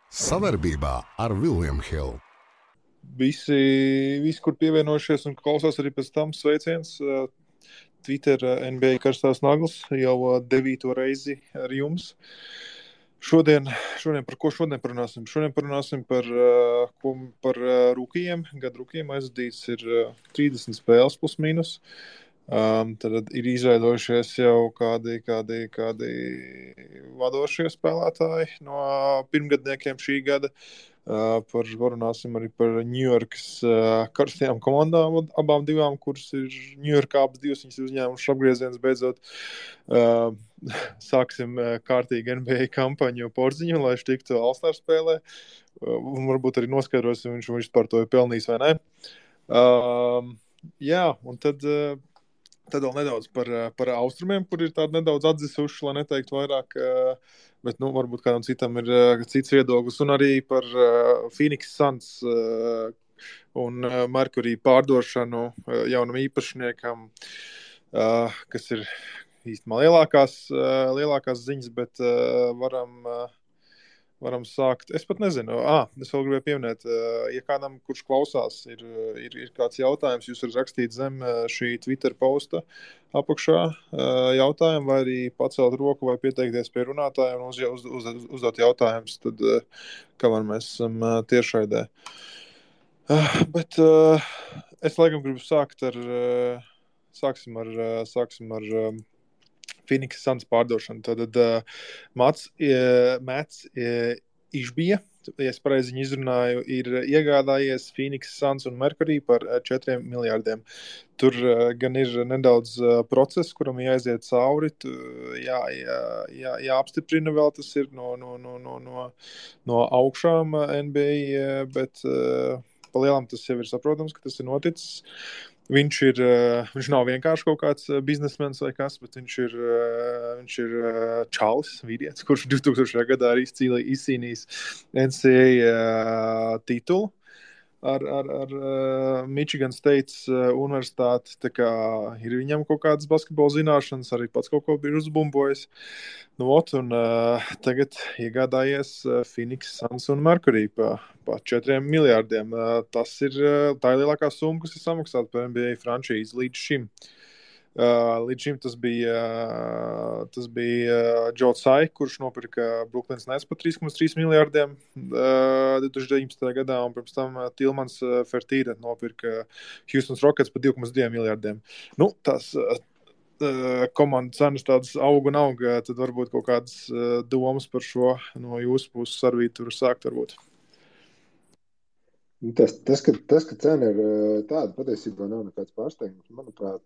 Savarbībā ar William Hill. Visi, kur pievienojušies un klausās arī pēc tam, sveiciens. Twitter NBA karstās naglas jau 9. reizi ar jums. Šodien par ko parunāsim? Šodien parunāsim par rūkījiem. Gadu rūkījiem aizvadīts ir 30 spēles plus mīnus. Tad ir izveidojušies jau kādi vadošie spēlētāji no pirmgadniekiem šī gada. Parunāsim arī par Ņujorkas karstajām komandām, abām divām, kuras ir Ņujorkā abas divas, viņas ir uzņēmušas apgrieziens beidzot. Sāksim kārtīgi NBA kampaņu Porziņu, lai viņš tiktu All-Star spēlē. Varbūt arī noskaidrosim, viņš par to ir pelnījis vai ne. Un tad vēl nedaudz par austrumiem, kur ir tādi nedaudz atzisuši, lai neteiktu vairāk, bet varbūt kādam citam ir cits viedoklis, un arī par Phoenix Suns un Mercury pārdošanu jaunam īpašniekam, kas ir īstenībā lielākās ziņas, bet varam sākt. Es pat nezinu. Es vēl gribēju pieminēt, ja kādam, kurš klausās, ir kāds jautājums, jūs varat rakstīt zem šī Twitter posta apakšā jautājumu, vai arī pacelt roku vai pieteikties pie runātājiem un uzdot jautājumus, tad kamēr mēs esam tiešraidē. Bet es laikam gribu sākt sāksim ar Phoenix Suns pārdošanu. Tad Mats Išbija, ja es pareizi viņu izrunāju, ir iegādājies Phoenix Suns un Mercury par 4 miljārdiem. Tur gan ir nedaudz process, kuram jāaiziet cauri, jāapstiprina vēl tas ir no augšām NBA, bet pa lielam tas jau ir saprotams, ka tas ir noticis. Viņš nav vienkārši kaut kāds biznesmens vai kas, bet viņš ir čalis, vīrietis, kurš 2000. gadā arī izcīnījis NCAA titulu ar Michigan State universitāti. Tā kā ir viņam kaut kādas basketbola zināšanas, arī pats kaut ko bija uzbumbojis. Un tagad iegādājies Phoenix Suns un Mercury pa 4 miljārdiem. Tā ir lielākā summa, kas ir samaksāta par NBA frančīzi līdz šim. Līdz šim tas bija Joe Tsai, kurš nopirka Brooklyns Nets par 3,3 miljārdiem 2019. gadā, un pirms tam Tilmans Fertīra nopirka Houston Rockets par 2,2 miljārdiem. Tās komandas cenas tādas aug, tad varbūt kaut kādas domas par šo no jūsu puses arī tur sākt varbūt. Tas, ka cena ir tāda, patiesībā nav nekāds pārsteigums, manuprāt,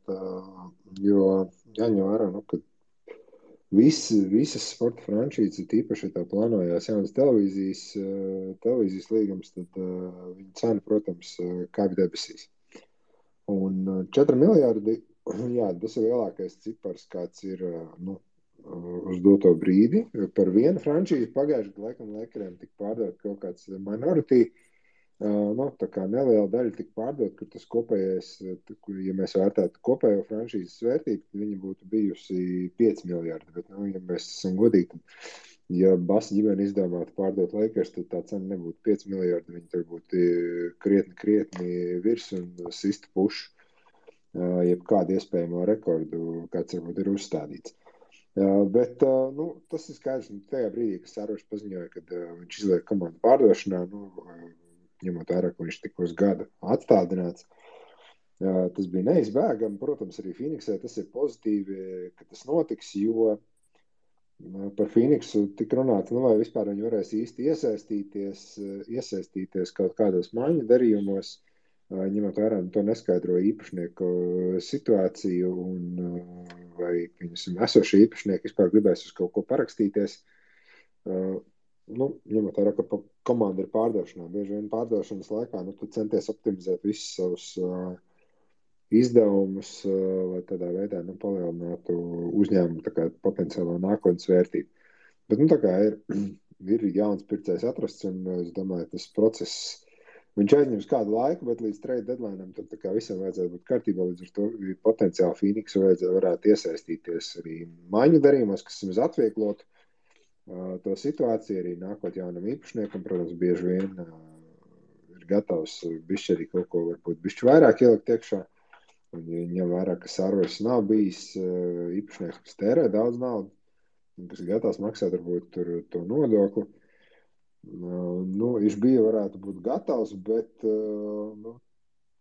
jo jāņem vērā, ka visas sporta franšīzes, tīpaši tā plānojās jaunas televīzijas līgums, tad viņa cena, protams, kāp debesīs. Un 4 miljārdi, jā, tas ir lielākais cipars, kāds ir uz doto brīdi. Par vienu franšīzi pagājušajā gadā laikam Lakeriem tika pārdot kaut kāds minority. Tā kā neliela daļa tika pārdot, kur tas kopējais, ja mēs vērtētu kopējo franšīzes vērtību, tad viņa būtu bijusi 5 miljārdi. Bet, ja mēs esam godīgi, tad, ja Basa ģimene izdomātu pārdot Lakers, tad tā cena nebūtu 5 miljārdi. Viņa tur būtu krietni virs un sistu pušu, jebkādu iespējamo rekordu, kāds varbūt ir uzstādīts. Bet tas ir skaidrs, tajā brīdī, kad Sārošs paziņoja, kad viņš izliek komandu pārdošanā, ņemot vērā, ka viņš tika uz gadu atstādināts. Tas bija neizbēgami. Protams, arī Phoenixē tas ir pozitīvi, ka tas notiks, jo par Phoenixu tika runāts, vai vispār viņi varēs īsti iesaistīties kaut kādos maiņu darījumos, ņemot vērā to neskaidro īpašnieku situāciju un vai viņas esošie īpašnieki vispār gribēs uz kaut ko parakstīties. Ņemot vērā, ka komanda ir pārdošanā. Bieži vien pārdošanas laikā tu centies optimizēt visus savus izdevumus, lai tādā veidā palielinātu uzņēmumu potenciālo nākotnes vērtību. Bet tā kā ir jauns pircējs atrasts, un es domāju, tas process, viņš aizņems kādu laiku, bet līdz trade deadline'am tad visam vajadzētu būt kārtībā, līdz ar to potenciāli Phoenixu varētu iesaistīties arī maiņu darījumos, kas mums atvieglotu to situāciju, arī nākot jaunam īpašniekam, protams, bieži vien ir gatavs bišķi arī kaut ko varbūt bišķi vairāk ielikt iekšā. Un ja ņem vērā, ka Sarvers nav bijis īpašnieks, kas tērē daudz naudu, un kas ir gatavs maksāt varbūt to nodokli. Viņš bija varētu būt gatavs, bet,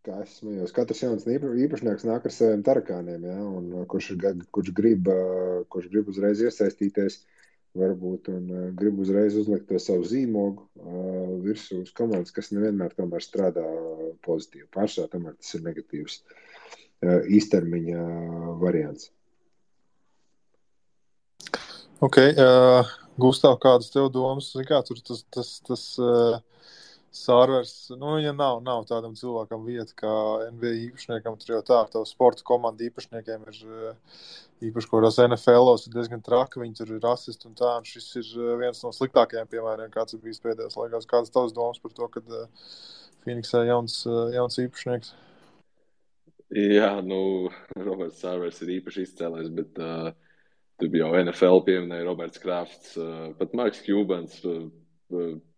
kā es smējos, katrs jauns īpašnieks nāk ar saviem tarakāniem, ja, un kurš grib uzreiz iesaistīties, varbūt, un grib uzreiz uzlikt to savu zīmogu virsū uz komandas, kas nevienmēr tomēr strādā pozitīvi. Pārsvarā tomēr tas ir negatīvs īstermiņa variants. Ok, Gustav, kādas tev domas? Kā tur tas Sarvers, ja nav tādam cilvēkam vieta kā NBA īpašniekam, tur jau tā, tev sporta komanda īpašniekiem ir īpaši, ko tās NFL-os ir diezgan traki, viņi tur ir rasisti un tā, un šis ir viens no sliktākajiem piemēriem, kāds ir bijis pēdējos laikās. Kādas tavas domas par to, kad Phoenixā jauns īpašnieks? Jā, Roberts Sarvers ir īpaši izcēlējis, bet tu jau NFL pieminēja Roberts Krafts, pat Marks Cubans,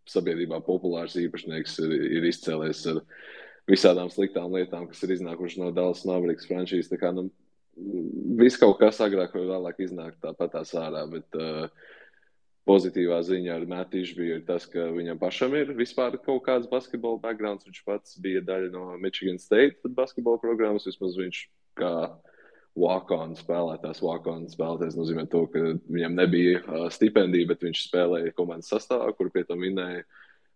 sabiedrībā populārs īpašnieks ir izcēlējis ar visādām sliktām lietām, kas ir iznākuši no Dallas Mavericks franšīzes. Tā kā, viss kaut kas agrāk vai vēlāk iznāk tāpatās ārā, bet pozitīvā ziņa ar Mattu Ishbiju ir tas, ka viņam pašam ir vispār kaut kāds basketbola backgrounds. Viņš pats bija daļa no Michigan State basketbola programmas, vismaz viņš kā walk-on spēlētājs nozīmē to, ka viņam nebija stipendija, bet viņš spēlēja komandas sastāvā, kur pie tam minēja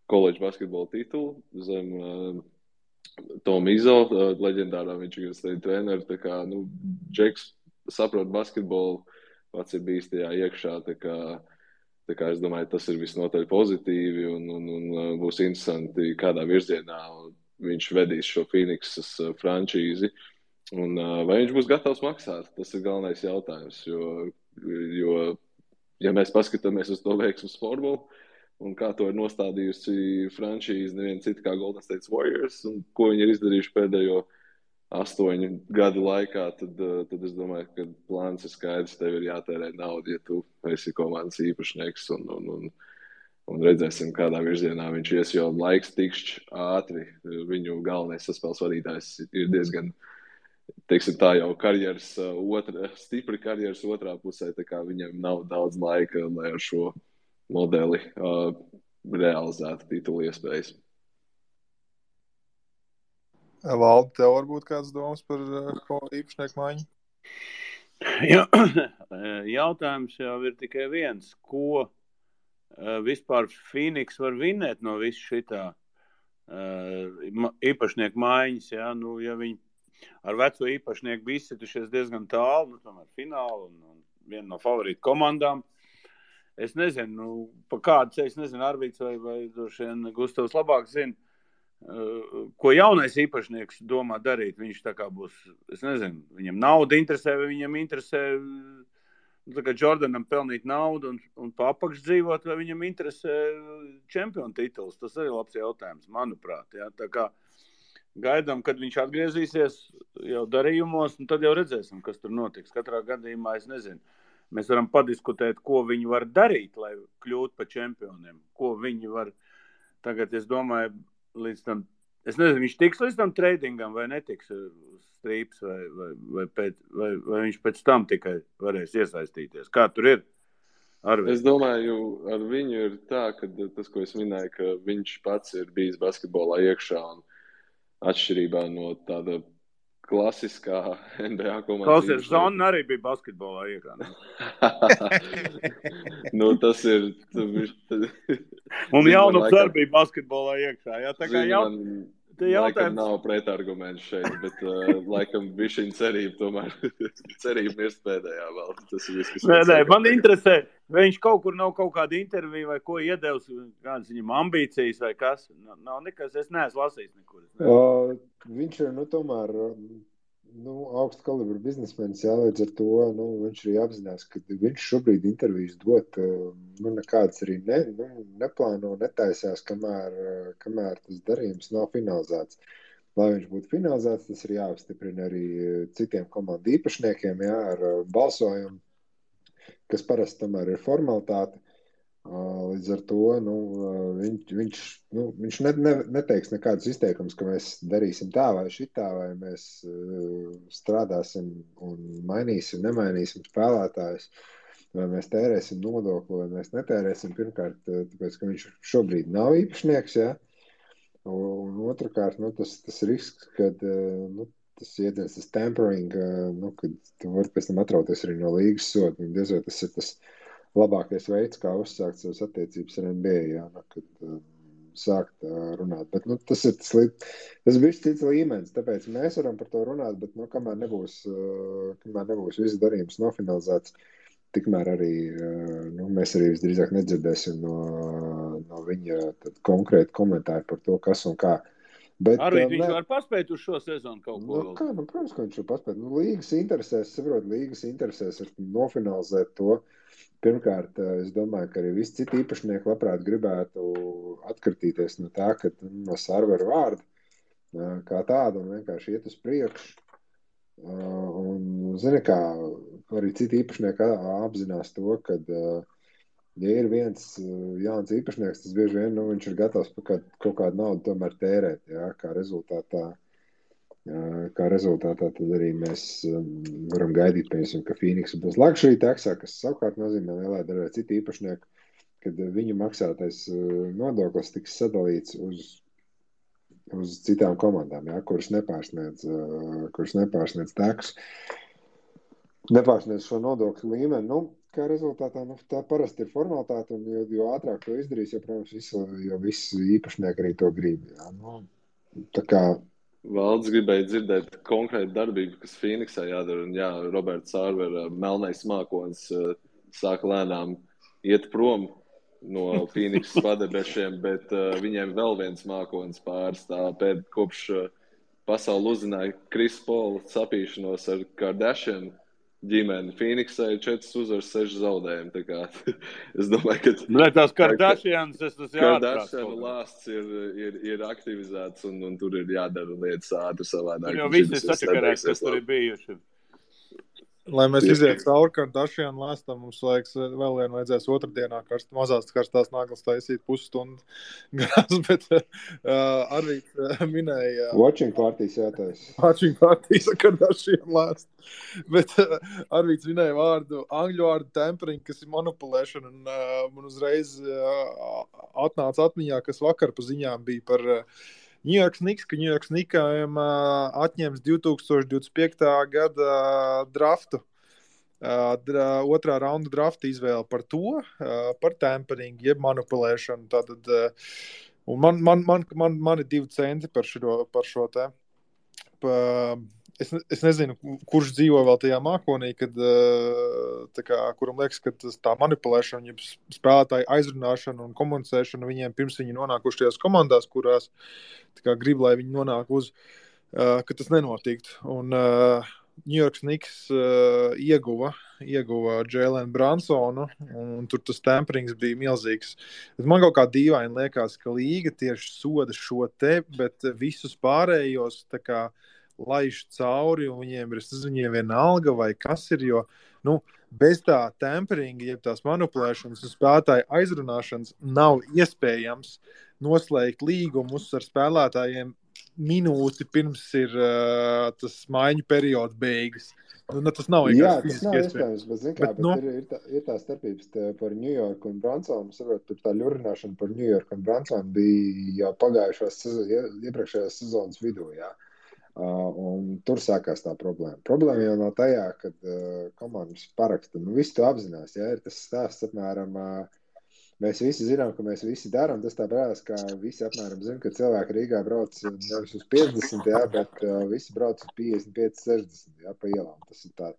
koledžu basketbola titulu zem Tom Izzo, leģendārā Michigan State treneru. Tā kā, Džeks saprot basketbolu, pats ir bijis tajā iekšā, tā kā es domāju, tas ir visnotaļ pozitīvi un būs interesanti, kādā virzienā viņš vedīs šo Phoenixas frančīzi. Un vai viņš būs gatavs maksāt? Tas ir galvenais jautājums, jo ja mēs paskatāmies uz to veiksmu Formulu un kā to ir nostādījusi franšīze neviena cita kā Golden State Warriors un ko viņi ir izdarījuši pēdējo 8 gadu laikā, tad es domāju, ka plāns ir skaidrs, tev ir jātērē naudu, ja tu esi komandas īpašnieks un redzēsim, kādā virzienā viņš ies, jo laiks tikšķi ātri. Viņu galvenais saspēles vadītājs ir diezgan teiksim tā jau stipri karjeras otrā pusē, tā kā viņam nav daudz laika, lai ar šo modeli realizētu titulu iespējas. Valdi, tev varbūt kāds domas par īpašnieku maiņu? Jautājums jau ir tikai viens, ko vispār Phoenix var vinēt no visu šitā īpašnieku maiņas, ja viņi ar veco īpašnieku bija izsitušies diezgan tālu, tomēr finālu un viena no favorītu komandām. Es nezinu, pa kādu ceļu, es nezinu, Arvīts vai droši vien Gustavs labāk zina, ko jaunais īpašnieks domā darīt. Viņš tā kā būs, es nezinu, viņam nauda interesē, vai viņam interesē tā kā Jordanam pelnīt naudu un pa apakš dzīvot, vai viņam interesē čempionu tituls. Tas arī labs jautājums, manuprāt. Ja? Tā kā gaidām, kad viņš atgriezīsies jau darījumos, un tad jau redzēsim, kas tur notiks. Katrā gadījumā es nezinu. Mēs varam padiskutēt, ko viņi var darīt, lai kļūtu par čempioniem. Ko viņi var tagad, es domāju, līdz tam, es nezinu, viņš tiks līdz tam tradingam vai netiks uz strīps, vai viņš pēc tam tikai varēs iesaistīties. Kā tur ir? Es domāju, ar viņu ir tā, ka tas, ko es minēju, ka viņš pats ir bijis basketbolā iekšā un atšķirībā no tāda klasiskā NBA komandas. Klausies, Zona arī bija basketbolā iekšā. Tas ir... Un Jaunups arī bija basketbolā iekšā. Jā, tā kā laikam nav pretarguments šeit, bet laikam bišķiņ cerība tomēr. Cerība mirst pēdējā vēl. Tas ir viss, kas Nē, man interesē, vai viņš kaut kur nav kaut kāda intervija vai ko iedevs, kādas viņam ambīcijas vai kas. Nav nekas, es neesmu lasījis nekur. Viņš ir, tomēr, augsta kalibra biznesmenis, jā, līdz ar to, viņš arī apzinās, ka viņš šobrīd intervijas dot, nekādas arī neplāno, netaisās, kamēr tas darījums nav finalizēts. Lai viņš būtu finalizēts, tas ir jāapstiprina arī citiem komandu īpašniekiem, jā, ar balsojumu, kas parasti tomēr ir formalitāte. Līdz ar to viņš neteiks nekādus izteikumus, ka mēs darīsim tā vai šitā, vai mēs strādāsim un nemainīsim spēlētājus, vai mēs tērēsim nodokli, vai mēs netērēsim. Pirmkārt, tāpēc, ka viņš šobrīd nav īpašnieks, ja? Un otrkārt, tas risks, kad tas ieties, tas tampering, kad tu vari pēc tam atrauties arī no līgas soda, un diez vai tas ir tas labākais veids, kā uzsākt savas attiecības ar NBA, jā, kad sākt runāt. Bet tas ir tas bija cits līmenis, tāpēc mēs varam par to runāt, bet kamēr nebūs viss darījums nofinalizēts, tikmēr arī mēs arī visdrīzāk nedzirdēsim no viņa konkrēti komentāri par to, kas un kā. Bet, arī viņš var paspēt uz šo sezonu kaut ko vēl. Protams, ka viņš var paspēt. Līgas interesēs ir nofinalizēt to. Pirmkārt, es domāju, ka arī visi citi īpašnieki labprāt gribētu atkritīties no tā, ka no serveru vārda kā tāda un vienkārši iet uz priekšu. Un, zini kā, arī citi īpašnieki apzinās to, ka ja ir viens jauns īpašnieks, tas bieži vien viņš ir gatavs kaut kādu naudu tomēr tērēt, jā, kā rezultātā tad arī mēs varam gaidīt, piemēram, ka Phoenix būs luxury taxā, kas savukārt nozīmē lielā daļā citi īpašnieki, kad viņu maksātais nodoklis tiks sadalīts uz citām komandām, jā, kuras nepārsniedz taxu, nepārsniedz šo nodokļu līmeni. Kā rezultātā, tā parasti ir formalitāte, un jo ātrāk to izdarīs, jo, protams, jo visi īpašnieki arī to grib. Jā. Tā kā Valdes gribēja dzirdēt konkrētu darbību, kas Phoenixā jādara, un jā, Roberts Sārvera melnais mākonis sāka lēnām iet prom no Phoenixas padebešiem, bet viņiem vēl viens mākonis pārstāv kopš pasauli uzzināja Chris Paul sapīšanos ar Kardashian ģimeni. Phoenixai 4 uzvaras, 6 zaudējumi. Tā kā, es domāju, ka tās Kardashians, Kardashian lāsts ir aktivizēts un tur ir jādara lietas ātri savādāk. Jo visi sačakarēs, kas tur ir bijuši. Lai mēs izietu cauri Kardashian lāstam, mums vēl vajadzēs otrdienā mazās karstās naglas taisīt pusstundu garās, bet Arvīts minēja... Watching partijas jātais. Watching partijas ar Kardashian lāstu. Bet Arvīts minēja angļu vārdu tempering, kas ir manipulēšana, un man uzreiz atnāca atmiņā, kas vakar pa ziņām bija par... New York Knicks, ka New York Knicksiem atņems 2025. Gada draftu, otrā raunda drafta izvēle par to, par tampering, jeb manipulēšanu. Tātad, un man ir 2 centi par šo te. Es nezinu, kurš dzīvo vēl tajā mākonī, kad, kuram liekas, ka tā manipulēšana, spēlētāju aizrunāšana un komunicēšana viņiem pirms viņi nonākuši tajās komandās, kurās grib, lai viņi nonāk ka tas nenotiktu. Un New York Knicks ieguva Jalen Brunsonu, un tur tas temperings bija milzīgs. Man kaut kā dīvaini liekas, ka līga tieši soda šo te, bet visus pārējos laiž cauri, un viņiem vienalga, vai kas ir, jo, bez tā temperinga, jeb tās manipulēšanas un spēlētāju aizrunāšanas nav iespējams noslēgt līgumus ar spēlētājiem minūti pirms ir tas maiņu periods beigas. Tas nav fiziski iespējams, bet ir tā starpības par New York un Brunsonu. Tur tā ļurināšana par New York un Brunsonu bija jau iepriekšējās sezonas vidū, jā. Un tur sākās tā problēma. Problēma jau nav tajā, kad komandas paraksta. Visi to apzinās, ja ir tas stāsts apmēram, mēs visi zinām, ka mēs visi darām. Tas tā brālis, ka visi apmēram zina, ka cilvēki Rīgā brauc nevis uz 50, jā, bet visi brauc uz 55, 60, jā, pa ielām. Tas ir tā.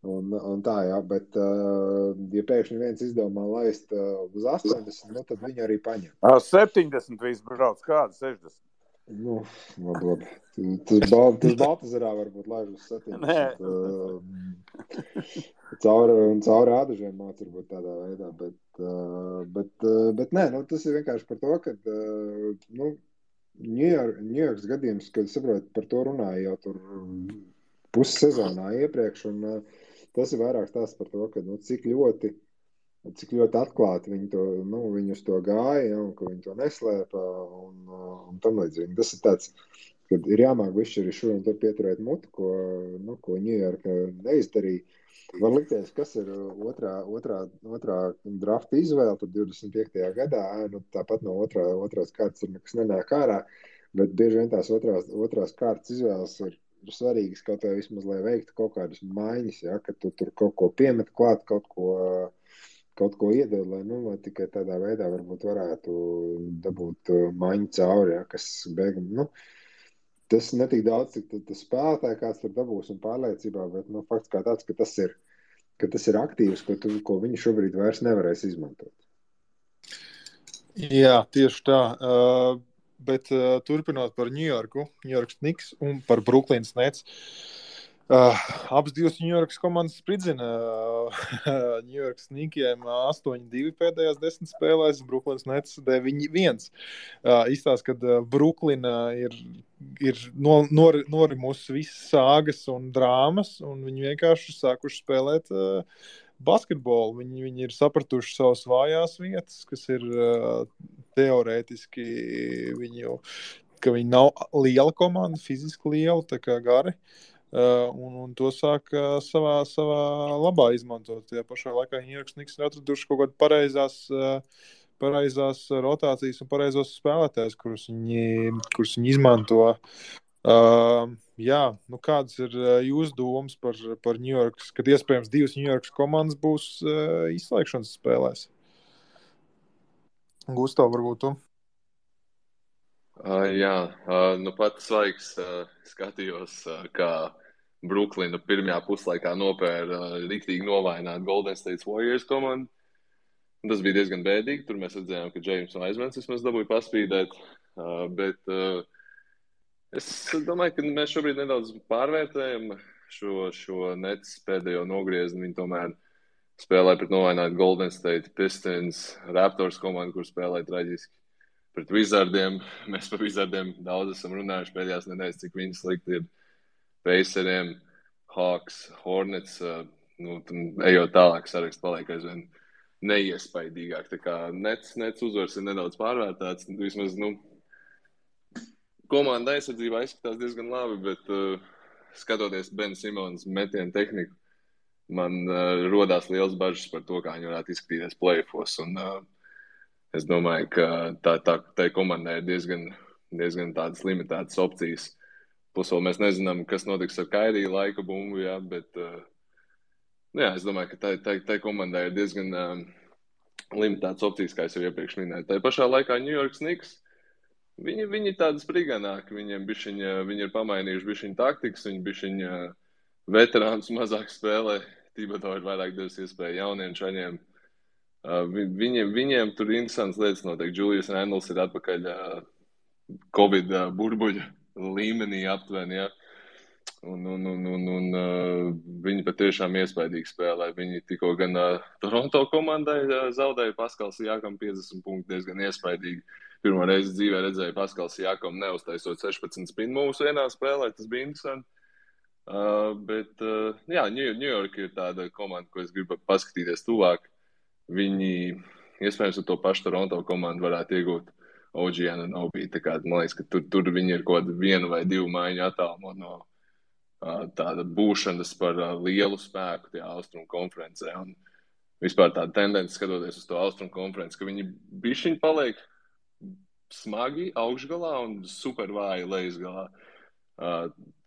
Un tā, jā, bet ja pēkšņi viens izdomā laist uz 80, tad viņi arī paņem. 70 visi brauc, kāda 60? Labi. Tas Baltazarā varbūt laiž uz 70. Cauri ādažiem māc varbūt tādā veidā, bet nē, tas ir vienkārši par to, ka New Yorks gadījums, kad saprot, par to runāja jau tur pussezonā iepriekš, un tas ir vairāk tās par to, ka cik ļoti cik ļoti atklāti viņi uz to gāja, ja, un ka viņi to neslēpa un tam līdzīgi. Tas ir tāds, kad ir jāmāk višķi arī šur un tur pieturēt mutu, ko Ņujorka neizdarīja. Var likties, kas ir otrā drafta izvēle, tad 25. gadā, tāpat no otrās kārtas tur nekas nenāk ārā, bet bieži vien tās otrās kārtas izvēles ir svarīgas, kaut vai vismaz, lai veiktu kaut kādas maiņas, ja, ka tu tur kaut ko piemet klāt, kaut ko iedod, lai tikai tādā veidā varbūt varētu dabūt maiņu cauri, ja, kas beigam, tas netik daudz, cik tas spēlētāji kāds tur dabūs un pārliecībā, bet fakts kā tāds, ka tas ir aktīvs, ko viņi šobrīd vairs nevarēs izmantot. Jā, tieši tā. Bet turpinot par Ņujorku, Ņujorkas Knicks un par Brooklynas Nets. Abas divas Ņujorkas komandas spridzina Ņujorkas Knickiem 8-2 pēdējās 10 spēlēs, Brooklynas Nets 9-1. Izstāst, kad Brooklina ir norimusi visas sāgas un drāmas, un viņi vienkārši sākuši spēlēt basketbolu. Viņi ir sapratuši savas vājās vietas, kas ir teorētiski ka viņi nav liela komanda, fiziski liela, tā kā gari. Un to sāk savā labā izmantot. Tajā pašā laikā Ņujorkas Knicks ir atraduši kaut kādu pareizās rotācijas un pareizos spēlētājus, kurus viņi izmanto. Kādas ir jūsu domas par Ņujorkas, kad iespējams divas Ņujorkas komandas būs izslēgšanas spēlēs? Gustav, varbūt tu? Pats svaigs skatījos, kā Brooklyna pirmajā puslaikā nopēra riktīgi novaināt Golden State Warriors komandu. Tas bija diezgan bēdīgi. Tur mēs redzējām, ka James Wisemans vismaz dabūja paspīdēt. Bet es domāju, ka mēs šobrīd nedaudz pārvērtējam šo Nets pēdējo nogriezni. Viņi tomēr spēlē pret novainātu Golden State Pistons, Raptors komandu, kur spēlē traģiski. Pret Wizardiem. Mēs par Wizardiem daudz esam runājuši pēdējās nedēļas, cik viņi slikti ir. Paceriem, Hawks, Hornets, ejot tālāk, saraksts paliek aizvien neiespaidīgāk. Tā kā Nets uzvars ir nedaudz pārvērtāts. Vismaz, komanda aizsardzībā izskatās diezgan labi, bet skatoties Ben Simons metienu tehniku, man rodās liels bažas par to, kā viņi varētu izskatīties play-offos. Un es domāju, ka tai komandai ir diezgan tādas limitētas opcijas. Plus vēl mēs nezinām, kas notiks ar Kairiju laika bumbu, jā, bet es domāju, ka tai komandai ir diezgan limitētas opcijas, kā es jau iepriekš minēju. Tai pašā laikā Ņujorkas Knicks, viņi tādi spriganāki, viņi ir pamainījuši bišķiņu taktikas, viņi bišķiņu veterānus mazāk spēlē, Thibodeau ir vairāk devis iespēju jauniem čaļiem. Viņiem tur interesants lietas notiek. Julius Randles ir atpakaļ Covid burbuļu līmenī aptuveni, ja. Un viņi patiešām iespaidīgi spēlē. Viņi tikko gan Toronto komandai zaudēja Paskals Siakam 50 punkti diezgan iespaidīgi. Pirmo reizi dzīvē redzēju Paskals Siakam neuztaisot 16 spin moves vienā spēlē, tas bija interesanti. New York ir tāda komanda, ko es gribu paskatīties tuvāk. Viņi iespējams ar to pašu Toronto komandu varētu iegūt OG Anunoby. Tā kā man liekas, ka tur viņi ir kaut kādu 1 vai 2 maiņu attālumu no tāda būšanas par lielu spēku tajā Austrumu konferencē. Un vispār tāda tendence skatoties uz to Austrumu konferenci, ka viņi bišķiņi paliek smagi augšgalā un super vāji lejasgalā.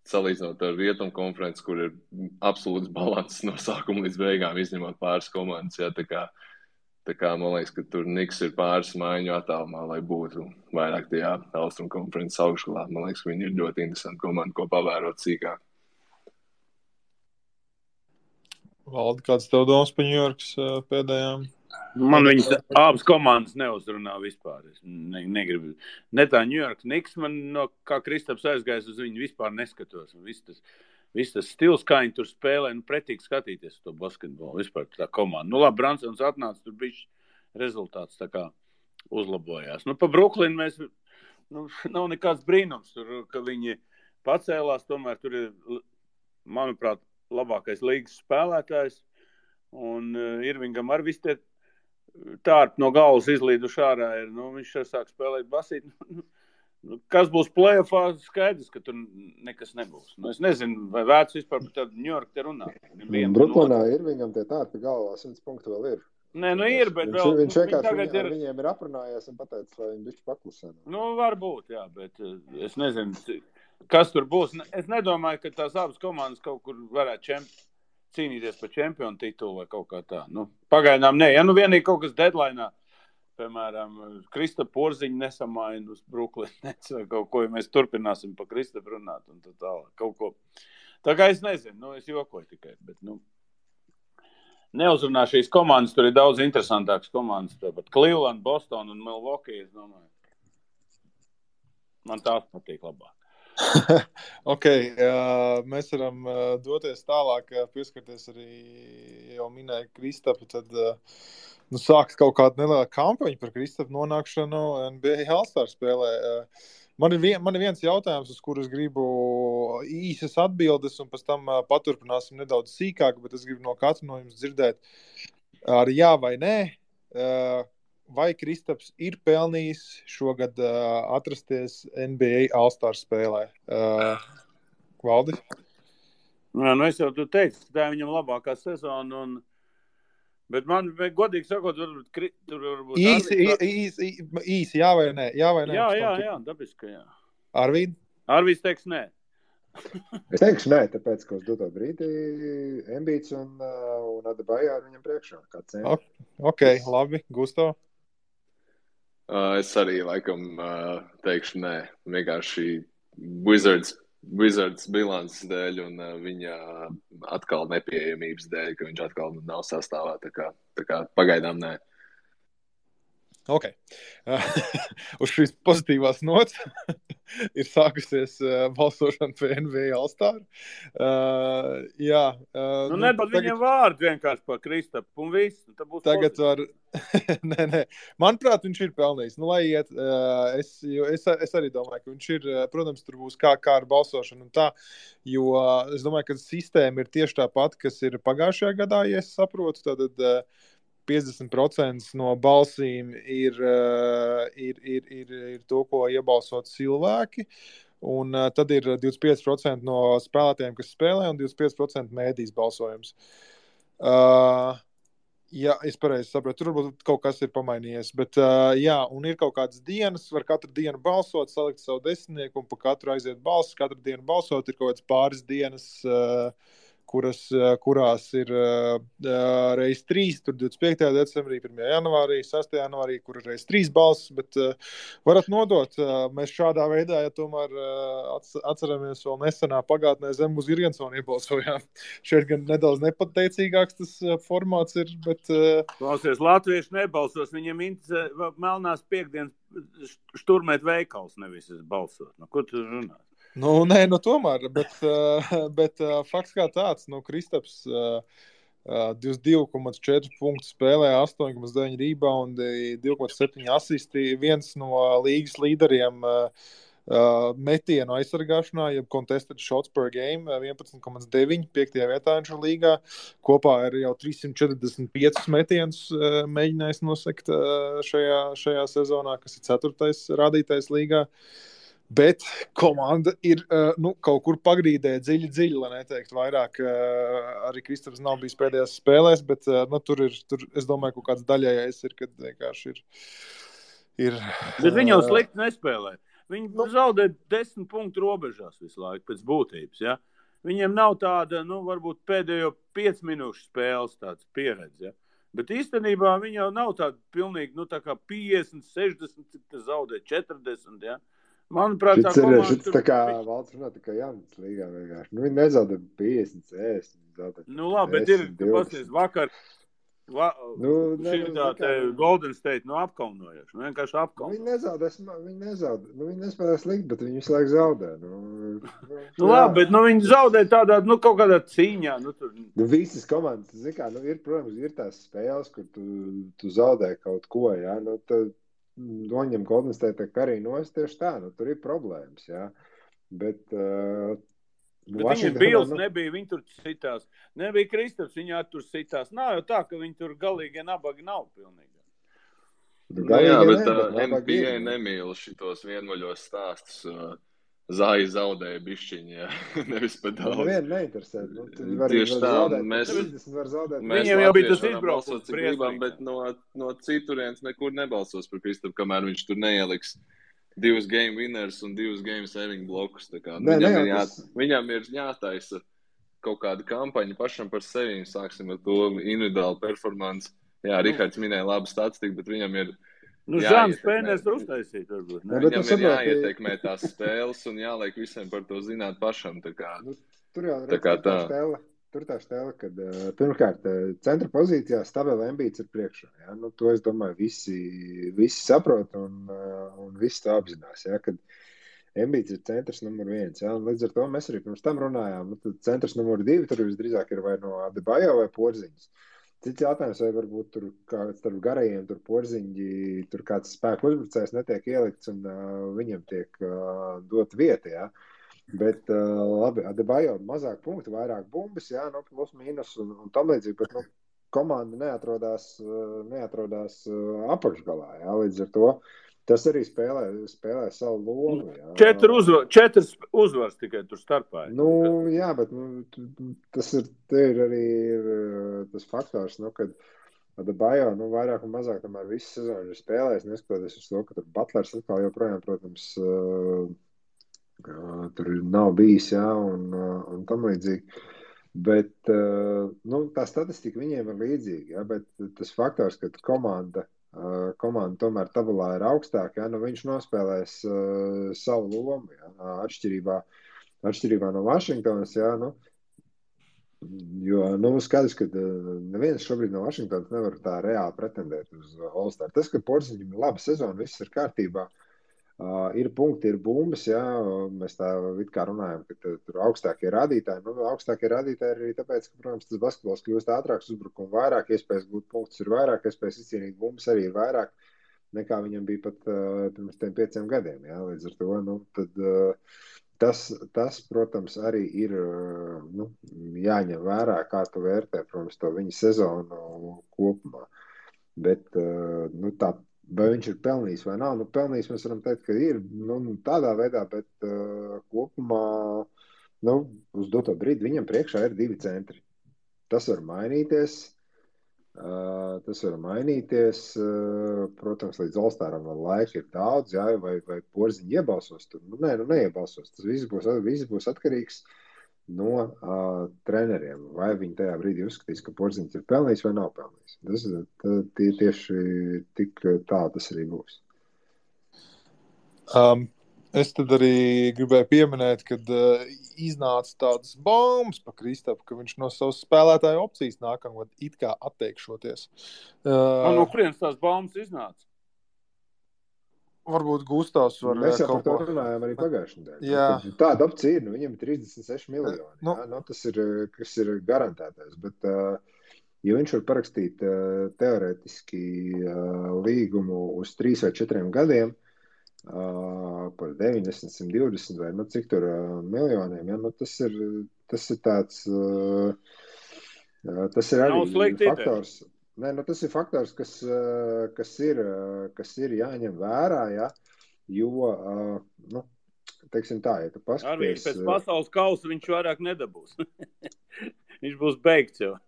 Salīdzinot ar Rietumu konferenci, kur ir absolūts balanss no sākuma līdz beigām, izņemot pāris komandas. Ja, tā kā man liekas, ka tur Knicks ir pāris maiņu attālumā, lai būtu vairāk tajā Austrumu konferences augšgalā. Man liekas, ka viņi ir ļoti interesanti komandi, ko pavērot sīkāk. Valdi, kāds tev domas par Ņujorkas pēdējām? Man viņas abas komandas neuzrunā vispār. Es negribu. Ne tā Ņujorkas Knicks, man kā Kristaps aizgājis uz viņu vispār neskatos. Viss tas stils, kā viņi tur spēlē, pretīgi skatīties to basketbolu. Vispār tā komanda. Labi, Bransons atnāca, tur bija rezultāts tā kā uzlabojās. Pa Brooklynu mēs, nav nekāds brīnums, tur, ka viņi pacēlās, tomēr tur ir, manuprāt, labākais līgas spēlētājs. Un Irvingam ar visi tie tārp no galvas izlīduši ārā ir, viņš sāk spēlēt basīt. Kas būs play-offā, skaidrs, ka tur nekas nebūs. Es nezinu, vai vērts vispār par tādu New York te runā. Brooklynā ir viņam tie tārpi galvā, 100 punktu vēl ir. Nē, ir, bet viņš vienkārši viņiem ir aprunājies un pateicis, lai viņi bišķi paklusē. Varbūt, jā, bet es nezinu, kas tur būs. Es nedomāju, ka tās abas komandas kaut kur varētu cīnīties par čempionu titulu vai kaut kā tā. Pagaidām nē. Ja vienīgi kaut kas deadline'ā, piemēram, Kristapa Porziņa nesamaina uz Brooklyn Nets vai kaut ko, ja mēs turpināsim par Kristapu runāt un tā tālāk, kaut ko. Tā kā es nezinu, es jokoju tikai, bet, neuzrunā šīs komandas, tur ir daudz interesantākas komandas, tāpat Cleveland, Boston un Milwaukee, es domāju. Man tās patīk labāk. Mēs varam doties tālāk, pieskarties arī jau minēja Kristapu, tad sāks kaut kāda neliela kampaņa par Kristapu nonākšanu NBA All-Star spēlē. Man ir viens jautājums, uz kuru es gribu īsas atbildes, un pēc tam paturpināsim nedaudz sīkāk, bet es gribu no katra no jums dzirdēt ar jā vai nē, vai Kristaps ir pelnījis šogad atrasties NBA All-Star spēlē. Valdi? Jā, es jau tu teicu, ka tā ir viņam labākā sezona, bet man, godīgi sakot, tur varbūt... Īsi, jā vai nē? Jā, dabiski, jā. Arvīd? Arvīds teiks nē. Es teikšu nē, tāpēc, ka uz doto brīdi Embiids un Adebayo viņam priekšā. Ok, labi. Gusto? Es arī laikam teikšu nē. Vienkārši Wizards bilances dēļ un viņa atkal nepieejamības dēļ, ka viņš atkal nav sastāvā. Tā kā pagaidām nē. Ok. Uz šīs pozitīvās nots ir sākusies balsošana par NBA All-Star. Nepat viņiem vārdu vienkārši par Kristapu un visu. Tagad var... Nē. Manuprāt, viņš ir pelnījis. Lai iet, es arī domāju, ka viņš ir, protams, tur būs kā ar balsošanu un tā, jo es domāju, ka sistēma ir tieši tā pati, kas ir pagājušajā gadā, ja es saprotu, tad 50% no balsīm ir to, ko iebalsot cilvēki, un tad ir 25% no spēlētājiem, kas spēlē, un 25% mēdīs balsojums. Jā, es pareizi saprotu, tur varbūt kaut kas ir pamainījies, bet jā, un ir kaut kādas dienas, var katru dienu balsot, salikt savu desmitnieku un pa katru aiziet balsis, katru dienu balsot, ir kaut kādas pāris dienas, kurās ir reiz 3, tur 25. decembrī, 1. janvārī, 6. janvārī, kur ir reiz 3 balsis, bet varat nodot. Mēs šādā veidā, ja tomēr atceramies vēl nesenā pagātnē zem uz Irgensonu iebalsojām. Šeit gan nedaudz nepateicīgāks tas formāts ir, bet... Klausies, latvieši nebalsos, viņiem interesē melnās piekdienas šturmēt veikals, nevis balsot. Ko tu runā? Tomēr, bet fakts kā tāds, Kristaps 22,4 punktu spēlē, 8,9 rebound, 2,7 asisti, viens no līgas līderiem metienu aizsargāšanā, jeb contested shots per game, 11,9, 5. vietā viņš ir līgā, kopā ir jau 345 metienus mēģinājis nosekt šajā sezonā, kas ir 4. rādītais līgā. Bet komanda ir kaut kur pagrīdē dziļi, lai neteikt vairāk. Arī Kristaps nav bijis pēdējās spēlēs, bet tur es domāju, ka kāds daļējais ir, kad vienkārši ir. Bet viņi jau slikti nespēlē. Viņi zaudē 10 punktu robežās visu laiku pēc būtības. Ja? Viņiem nav tāda, varbūt pēdējo 5 minūšu spēles tāds pieredze. Ja? Bet īstenībā viņi jau nav tāda pilnīgi, tā kā 50, 60, zaudē 40, ja? Manuprāt, tā komanda... Šits tā kā valsts runā, tā kā Jānis līgā vienkārši. Viņi nezaudē 50, 60. Labi, bet ir, pasties, vakar Golden State apkaunojuši. Vienkārši apkaunojuši. Viņi nezaudē. Viņi nespēlē slikt, bet viņi visu laiku zaudē. Labi, bet viņi zaudē tādā, kaut kādā cīņā. Visas komandas, ir, protams, ir tās spēles, kur tu zaudē kaut ko, jā. Noņem Golden State arī nost tieši tā, tur ir problēmas, jā. Bet viņiem Bills nebija, viņi tur citās. Nebija Kristaps, viņi tur citās. Nav jau tā, ka viņi tur galīgi nabagi nav pilnīgi. Jā, bet nabaga ir, NBA nemīl šitos vienmuļos stāstus. Zāji zaudēja bišķiņi, jā. Nevis pa daudz. Nevienu neinteresē. Var Tieši tā, zaudēt, mēs 30 var zaudēt. Viņiem jau bija tas latvieši varam izbraukums balsot, cik gribam, briesmīgs. bet no citurienes nekur nebalsos par Kristapu, kamēr viņš tur neieliks 2 game winners un 2 game saving blokus. Tā kā, viņam ir jātaisa kaut kāda kampaņa pašam par sevi. Sāksim ar to individuālu performance. Jā, Rihards minēja labu statistiku, bet viņam ir Žāns Pēners var uztaisīt, varbūt. Viņam ir jāietekmē tās spēles un jāliek visiem par to zināt pašam. Tā kā, tur jau tā stēle, kad pirmkārt centra pozīcijā stabili Embiids ir priekšā. Ja? To es domāju visi saprot un visi to apzinās. Ja? Kad Embiids ir centrs numur 1. Ja? Un līdz ar to mēs arī pirms tam runājām. Centrs numur 2 tur visdrīzāk ir vai no Adebayo vai Porziņas. Cits jautājums, vai varbūt tur starp garajiem tur Porziņģi, tur kāds spēku uzbrucējs netiek ielikts un viņam tiek dot vieta, jā. Bet labi, Adebayo mazāk punktu, vairāk bumbas, jā, plus mīnus un tam līdzīgi, bet komanda neatrodās apakšgalā, jā, līdz ar to. Tas arī spēlē savu lomu. Jā. 4 uzvars tikai tur starpā. Jā, bet tas ir arī tas faktors, kad Adebayo vairāk un mazāk tomēr visu sezonu ir spēlējis, neskatoties uz to, ka tur Butlers atkal joprojām, protams, tur nav bijis, jā, un tam līdzīgi. Bet tā statistika viņiem ir līdzīga, jā, bet tas faktors, ka komanda tomēr tabulā ir augstāka, ja, viņš nospēlēs savu lomu, ja, atšķirībā no Vašingtonas, ja, jo skaidrs, ka neviens šobrīd no Vašingtonas nevar tā reāli pretendēt uz All-Star. Tas, ka Porziņam ir laba sezona, viss ir kārtībā, ir punkti, ir bumbas, ja, mēs tā it kā runājam, ka tur augstākie rādītāji, augstākie rādītāji ir arī tāpēc, ka, protams, tas basketbols kļūst ātrāks, uzbrukumu vairāk, iespējas gūt punktus ir vairāk, iespējas izcīnīt bumbas arī ir vairāk, nekā viņam bija pat pirms 5 gadiem, ja, līdz ar to, tad tas, protams, arī ir, jāņem vērā, kā tu vērtē, protams, to viņa sezonu kopumā, bet, tā, vai viņš ir pelnījis vai nav, pelnījis mēs varam teikt, ka ir, tādā veidā, bet kopumā, uz doto brīdi viņam priekšā ir 2 centri. Tas var mainīties, protams, līdz All-Staram vēl laika ir daudz, jā, vai Porziņi iebalsos tur, neiebalsos, tas viss būs atkarīgs no treneriem, vai viņi tajā brīdī uzskatīs, ka Porziņš ir pelnījis vai nav pelnījis. Tas tieši tik tā tas arī būs. Es tad arī gribēju pieminēt, kad iznāca tādas baumas pa Kristapu, ka viņš no savas spēlētāju opcijas nākamgad it kā atteikšoties. No kurienes tās baumas iznāca? Varbūt Gustavs var mēs jau par to runājām arī pagājušajā nedēļā. Jā. Tāda opcija ir, viņam ir 36 miljoni. Tas ir garantētais. Bet, ja viņš var parakstīt teorētiski līgumu uz 3 vai 4 gadiem par 90, 120 vai cik tur miljoniem, ja, tas ir tāds tas ir arī faktors. Tas ir faktors, kas ir jāņem vērā, ja, jo, teiksim tā, ja tu paskaties... Arī pēc pasaules kausa viņš vairāk nedabūs. Viņš būs beigts jau.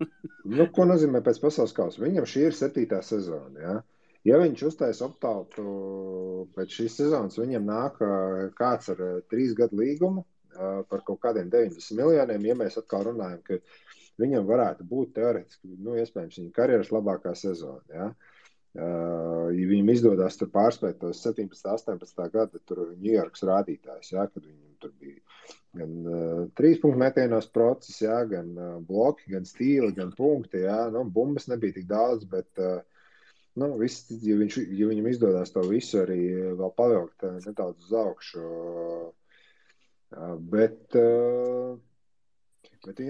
Ko nozīmē pēc pasaules kausa? Viņam šī ir 7. sezona, ja. Ja viņš uztais optautu pēc šīs sezonas, viņam nāk kāds ar 3 gadu līgumu par kaut kādiem 90 miljoniem, ja mēs atkal runājam, ka viņam varētu būt teorētiski, iespējams, viņa karjeras labākā sezona, ja? Ja viņam izdodās tur pārspēt tos 17, 18 gada tur Ņujorkas rādītājs, ja? Kad viņam tur bija gan 3 punktu metienos process, ja? Gan bloki, gan stīli, gan punkti, ja? Bumbas nebija tik daudz, bet ja viņam izdodās to visu arī vēl pavilkt nedaudz uz augšu, bet ja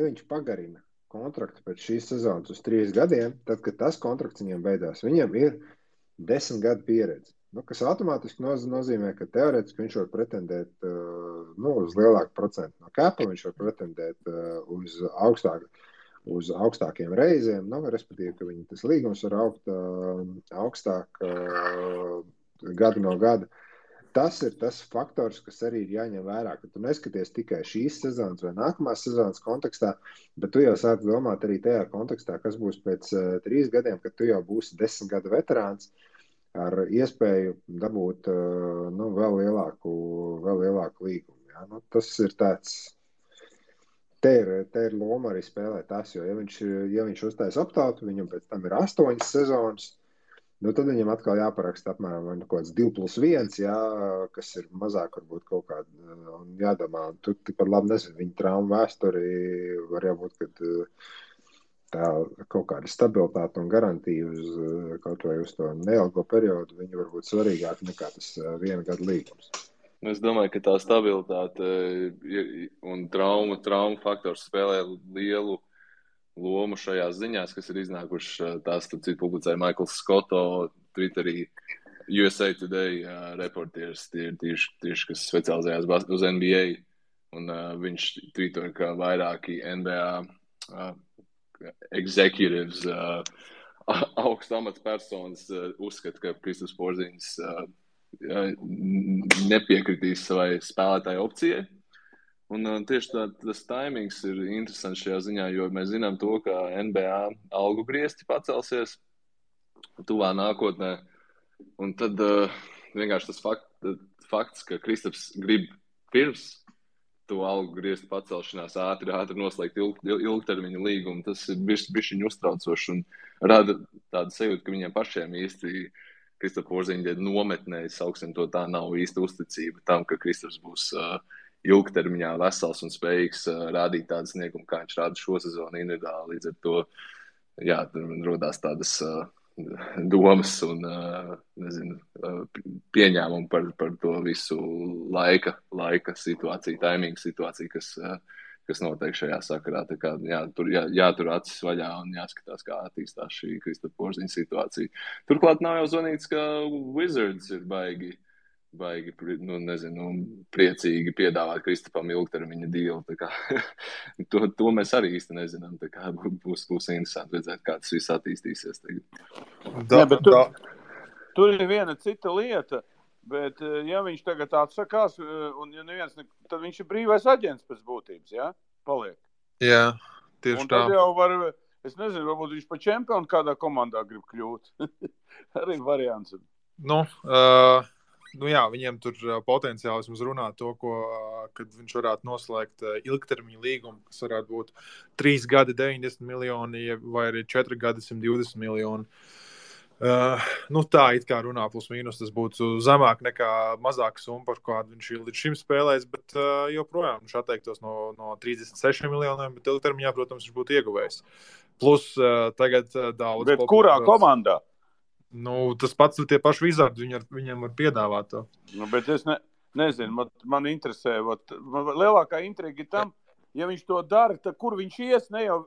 viņš pagarina kontraktu pēc šīs sezonas uz 3 gadiem, tad, kad tas kontrakts viņam beidās, viņam ir 10 gadu pieredze. Kas automātiski nozīmē, ka teorētiski viņš var pretendēt uz lielāku procentu no kapa, viņš var pretendēt uz uz augstākiem reizēm, respektīvi, ka viņi tas līgums var augt augstāk gadu no gada. Tas ir tas faktors, kas arī ir jāņem vērā, ka tu neskaties tikai šīs sezonas vai nākamās sezonas kontekstā, bet tu jau sāc domāt arī tajā kontekstā, kas būs pēc 3 gadiem, kad tu jau būsi 10 gadu veterāns ar iespēju dabūt vēl lielāku līgumu. Ja? Tas ir tāds, te ir loma arī spēlēt tas, jo ja viņš uztais optautu, viņam pēc tam ir 8 sezonas, tad viņam atkal jāparaksta apmēram kaut kāds 2+1, kas ir mazāk varbūt kaut kāda, un jādomā, un tu tikpat labi nezinu, viņa traumu vēsturi var jābūt, kad tā kaut kāda stabilitāte un garantija uz kaut vai uz to neilgo periodu, viņa var būt svarīgāk nekā tas 1 gadu līgums. Es domāju, ka tā stabilitāte un traumu faktors spēlē lielu lomu šajās ziņās, kas ir iznākušas, tās publicēja Michaels Scotto, Twitterī, USA Today reportieris, tieši kas specializējās uz NBA, un viņš tvītoja, ka vairāki NBA executives, augstu amatpersonas uzskata, ka Kristaps Porziņš nepiekritīs savai spēlētāju opcijai. Un tieši tas taimings ir interesants šajā ziņā, jo mēs zinām to, ka NBA algu griezti pacelsies tuvā nākotnē. Un tad vienkārši tas fakts, ka Kristaps grib pirms to algu griezti pacelšanās ātri noslēgt ilgtermiņa līgumu, tas ir bišķiņ uztraucoši un rada tādu sajūtu, ka viņiem pašiem īsti Kristapa Porziņa nometnē, sauksim to tā, nav īsti uzticība tam, ka Kristaps būs ilgtermiņā vesels un spējīgs rādīt tādu sniegumu, kā viņš rāda šo sezonu individuāli. Līdz ar to, tur rodās tādas domas un, pieņēmumi par to visu laika situāciju, taimingu situāciju, kas notiek šajā sakarā. Tā kā, tur jātur acis vaļā un jāskatās, kā attīstās šī Kristapa Porziņa situācija. Turklāt nav jau zvanīts, ka Wizards ir baigi, priecīgi piedāvāt Kristapam ilgtermiņa dealu. Tā kā, to mēs arī īsti nezinām. Tā kā būs interesanti redzēt, kā tas viss attīstīsies tagad. Tur ir viena cita lieta, bet ja viņš tagad atsakās, un ja neviens, tad viņš ir brīvais aģents pēc būtības, ja? Paliek. Jā, tieši tā. Un tad jau var, es nezinu, varbūt viņš pa čempionu kādā komandā grib kļūt. Arī variants. Viņiem tur potenciāli vismaz runā to, kad viņš varētu noslēgt ilgtermiņa līgumu, kas varētu būt 3 gadi 90 miljoni vai arī 4 gadi 120 miljoni. Tā it kā runā plus mīnus, tas būtu zemāk nekā mazāka summa, par kādu viņš ir līdz šim spēlējis, bet joprojām viņš atteiktos no 36 miljoniem, bet ilgtermiņā, protams, viņš būtu ieguvējis. Plus tagad daudz... Bet kurā komandā? Tas pats tie paši Wizardi, viņam var piedāvāt to. Bet es nezinu, man interesē, lielākā intriga ir tam, ja viņš to dara, tad kur viņš ies, ne jau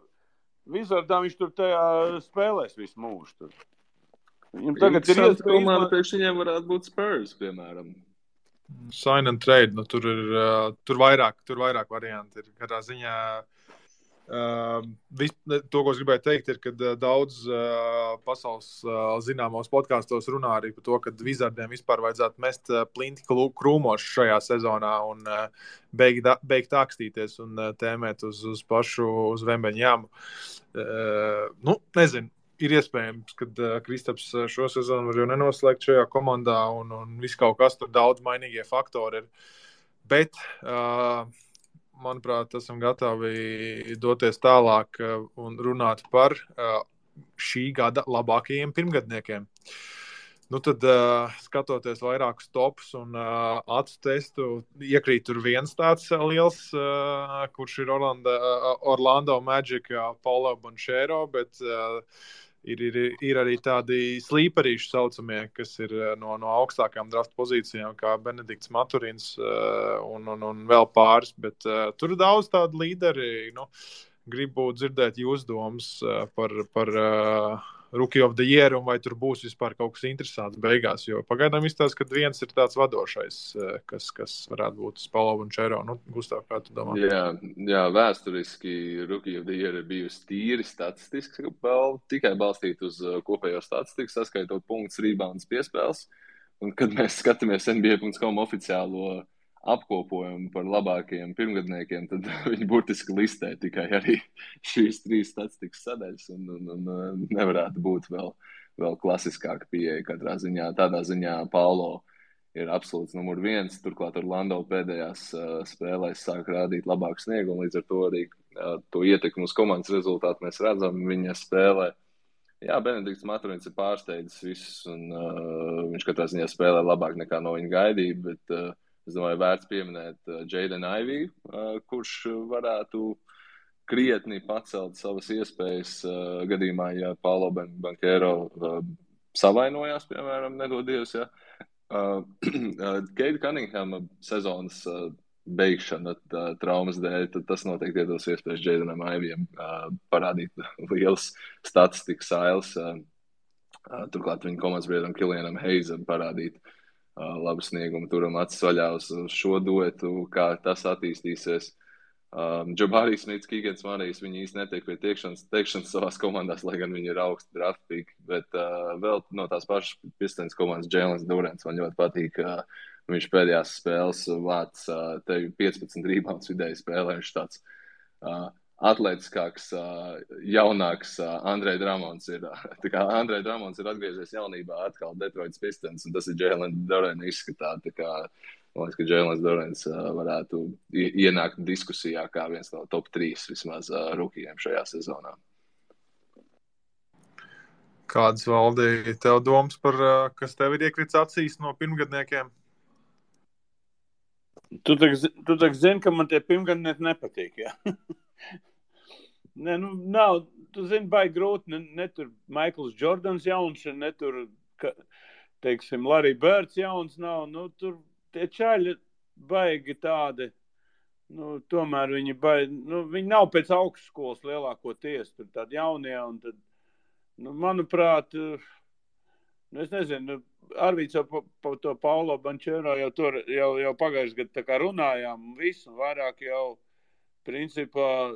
Wizardā viņš tur tajā spēlēs visu mūžu tur. Viņam tagad ir komanda, priekš viņiem varētu būt Spurs, piemēram. Sign and trade, tur vairāk varianti ir. Katrā ziņā to, ko es gribēju teikt, ir, ka daudz pasaules zināmos podkastos runā arī par to, ka Wizardiem vispār vajadzētu mest plinti krūmos šajā sezonā un beigt akstīties un tēmēt uz pašu uz Vembeņāmu. Nezinu, ir iespējams, ka Kristaps šo sezonu var jau nenoslēgt šajā komandā un viss kaut kas tur daudz mainīgie faktori ir. Bet manuprāt, esam gatavi doties tālāk un runāt par šī gada labākajiem pirmgadniekiem. Tad, skatoties vairākus topus un acu testu, iekrīt tur viens tāds liels, kurš ir Orlando Magic, Paulo Banchero, bet ir arī tādi slīperīši saucamie, kas ir no augstākām draft pozīcijām, kā Benedikts Maturins un vēl pāris, bet tur ir daudz tādu līderi. Gribu dzirdēt jūs domas par Rookie of the Year, un vai tur būs vispār kaut kas interesants beigās, jo pagaidām izstāsta, ka viens ir tāds vadošais, kas varētu būt Spalo un Čero. Nu, Gustav, kā tu domā? Jā, vēsturiski Rookie of the Year ir bijusi tīri statistiski, tikai balstīt uz kopējo statistiku, saskaitot punktus, rebounds, piespēles. Un, kad mēs skatāmies NBA.com oficiālo apkopojumu par labākajiem pirmgadniekiem, tad viņi burtiski listē tikai arī šīs 3 statistikas sadaļas un nevarētu būt vēl klasiskāka pieeja katrā ziņā. Tādā ziņā Paulo ir absolūts numur 1, turklāt Orlando pēdējās spēlēs sāk rādīt labāku sniegumu, līdz ar to arī to ietekmi uz komandas rezultātu mēs redzam viņa spēlē. Jā, Benedikts Maturins ir pārsteidzis visus, un viņš katrā ziņā spēlē labāk nekā no viņa gaidīja, bet es domāju, vērts pieminēt Jaden Ivey, kurš varētu krietni pacelt savas iespējas gadījumā, ja Paulo Banchero savainojās, piemēram, nedodies, ja. Keita Cunninghama sezonas beigšana traumas dēļ, tad tas noteikti iedos iespējas Jadenam Iveyam parādīt lielas statistikas ailes. Turklāt viņa komandas biedram Killianam Hayesam parādīt labu sniegumu, turam acis vaļā uz šo duetu, kā tas attīstīsies. Jabari Smits, Keegans Marijs, viņi īsti netiek pie teikšanas savās komandās, lai gan viņi ir augsti draft pick, bet vēl no tās pašas Pistons komandas Jēlens Durants man ļoti patīk. Viņš pēdējās spēles vāc tevi 15 rebounds vidēji spēlē, viņš tāds atletiskāks, jaunāks Andrej Dramons ir. Tā kā Andrej Dramons ir atgriezies jaunībā atkal Detroits Pistons, un tas ir Jēlens Durants izskatā. Tā kā, man liekas, ka Jēlens Durants varētu ienākt diskusijā kā viens no top 3 vismaz rukijiem šajā sezonā. Kādas, Valdi, tev domas par, kas tev ir iekrits acīs no pirmgadniekiem? Tu tak zini, ka man tie pirmgadnieki nepatīk, jā. Nē, nu, nav, tu zini, baigi grūti, ne tur Maikls Jordans jauns, ne tur, teiksim, Larry Birds jauns nav, nu, tur tie čaļi baigi tādi, nu, tomēr viņi nav pēc augstskolas lielākoties, tur tādi jaunie, un tad, nu, manuprāt, es nezinu, Arvīts jau par to Paulo Banchero jau pagājušajā gadā tā kā runājām un visu, un vairāk jau principā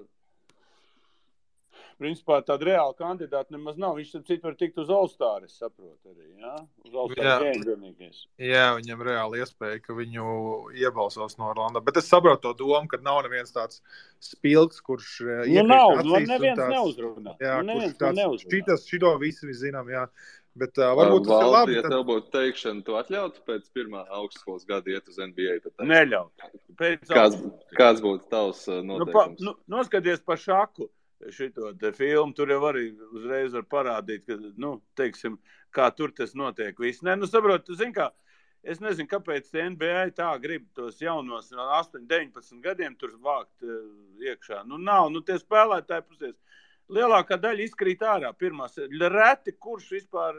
tāda reāla kandidāta nemaz nav. Viņš citu var tikt uz All-Star, es saprotu arī, jā? Uz All-Star game vienīgais. Jā, viņam reāli iespēja, ka viņu iebalsos no Orlando. Bet es saprotu to domu, ka nav neviens tāds spilgs, kurš nav, neviens neuzrunā. Jā, kurš tāds, šito visi zinām, jā. Bet varbūt tas ir labi. Ja tev būtu teikšana, tu atļautu pēc pirmā augstskolas gada iet uz NBA? Neļaut. Kāds būtu tavs noteikums? Noskaties par šaku šito te filmu, tur jau arī uzreiz var parādīt, ka, nu, teiksim, kā tur tas notiek viss. Nē, nu, saprot, tu zini kā, es nezinu, kāpēc NBA tā grib tos jaunos no 8, 19 gadiem tur vākt iekšā. Nu, nav, nu, tie spēlētāji pusies. Lielākā daļa izkrīt ārā pirmās. Reti, kurš vispār,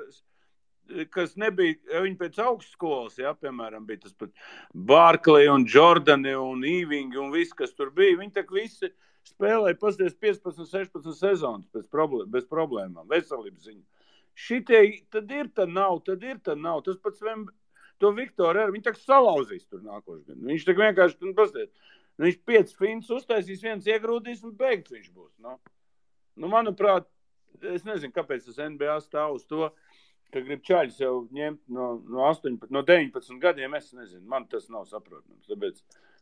kas nebija, viņi pēc augstskolas, jā, piemēram, bija tas pat Barkley un Jordani un Ewing un viss, kas tur bija. Viņi tak visi spēlēja pasties 15, 16 sezonas bez problēmām, veselības ziņa. Šitie, tad ir, tad nav. Tas pats to Viktoru arī, viņi tak salauzīs tur nākošais. Viņš tak vienkārši, pasties, viņš 5 fins uztaisīs, viens iegrūdīs un beigts viņš būs, no. Nu, manuprāt, es nezinu, kāpēc tas NBA stāv uz to, ka grib čaļus jau ņemt no 19 gadiem, es nezinu, man tas nav saprotams.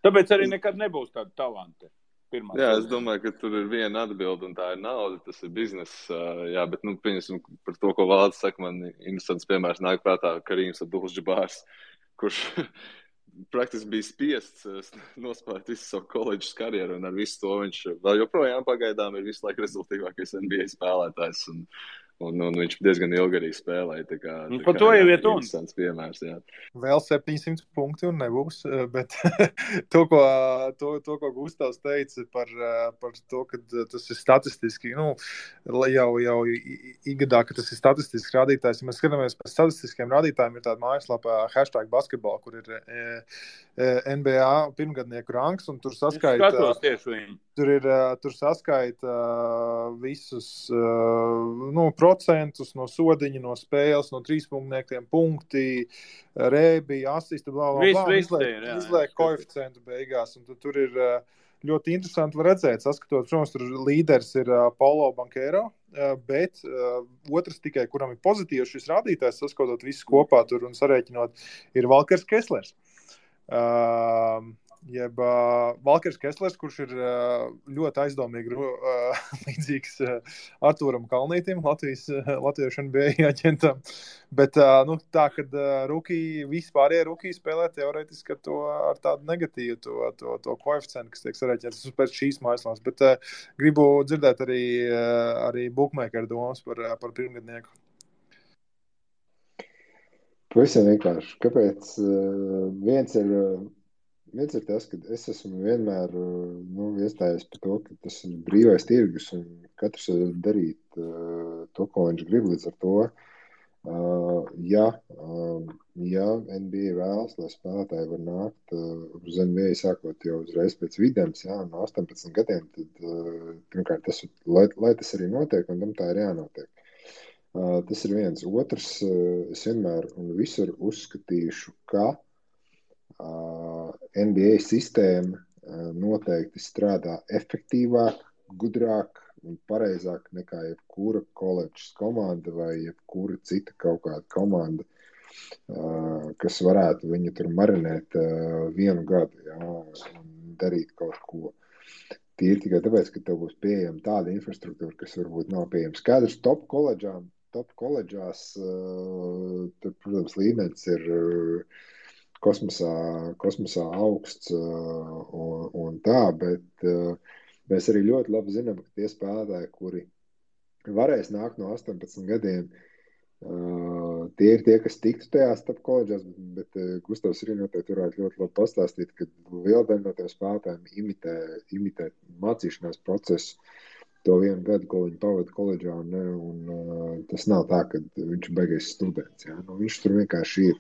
Tāpēc arī nekad nebūs tāda talanta. Jā, es domāju, ka tur ir viena atbilde, un tā ir nauda, tas ir bizness. Jā, bet, nu, pieņemsim par to, ko Valds saka, man interesants piemērs nāk prātā Karīms Abdul-Jabārs, kurš praktiski bija spiests nospēlēt visu savu koledžas karjeru, un ar visu to viņš vēl joprojām pagaidām ir visu laiku rezultīvākais NBA spēlētājs, un viņš diezgan ilgi arī spēlēja. Tā kā to jau iet un. Interesants piemērs, jā. Vēl 700 punkti un nebūs, bet to, ko Gustavs teica par to, ka tas ir statistiski, nu, jau igadā, ka tas ir statistisks rādītājs. Ja mēs skatāmies par statistiskiem rādītājiem, ir tāda mājaslapā #basketball, kur ir NBA pirmgadnieku ranks, un tur saskaita. Skatos tieši viņu. Tur saskaita visus, nu, procentus no sodiņa, no spēles, no trīspunktniekiem punkti, rēbi, asisti, izliek koeficientu beigās. Un tur ir ļoti interesanti var redzēt, saskatot, protams, tur līderis ir Paulo Banchero, bet otrs tikai, kuram ir pozitīvs šis rādītājs, saskatot visus kopā tur un sarēķinot, ir Valkers Kesslers. Valkers Kesslers, kurš ir ļoti aizdomīgi līdzīgs Artūram Kalnītim, latviešu NBA aģentam. Bet tā, kad vispārējie rukī spēlē teorētiski ar tādu negatīvu to koeficientu, kas tiek sarēķināts pēc šīs mājaslās. Bet gribu dzirdēt arī bookmakeru domas par pirmgadnieku. Pavisam vienkārši. Kāpēc? Viens ir tas, ka es esmu vienmēr iestājies par to, ka tas ir brīvais tirgus un katrs var darīt to, ko viņš grib līdz ar to. Ja NBA vēlas, lai spēlētāji var nākt uz NBA sākot jau uzreiz pēc videns, no 18 gadiem, tad pirmkārt, lai tas arī notiek, un tam tā ir jānotiek. Tas ir viens. Otrs, es vienmēr un visur uzskatīšu, ka NBA sistēma noteikti strādā efektīvāk, gudrāk un pareizāk nekā jebkura koledžas komanda vai jebkura cita kaut kāda komanda, kas varētu viņu tur marinēt vienu gadu un darīt kaut ko. Tīri tikai tāpēc, ka tev būs pieejama tāda infrastruktūra, kas varbūt nav pieejama. Skaidrs, top koledžās, tur, protams, līmenis ir kosmosā augsts un tā, bet mēs arī ļoti labi zinām, ka tie spēlētāji, kuri varēs nākt no 18 gadiem, tie ir tie, kas tiktu tajās top koledžās, bet Gustavs arī noteikti varētu ļoti labi pastāstīt, ka liela daļa no tiem spēlētājiem imitē mācīšanās procesu to vienu gadu, ko viņi pavada koledžā, un tas nav tā, ka viņš ir baigais students. Viņš tur vienkārši ir.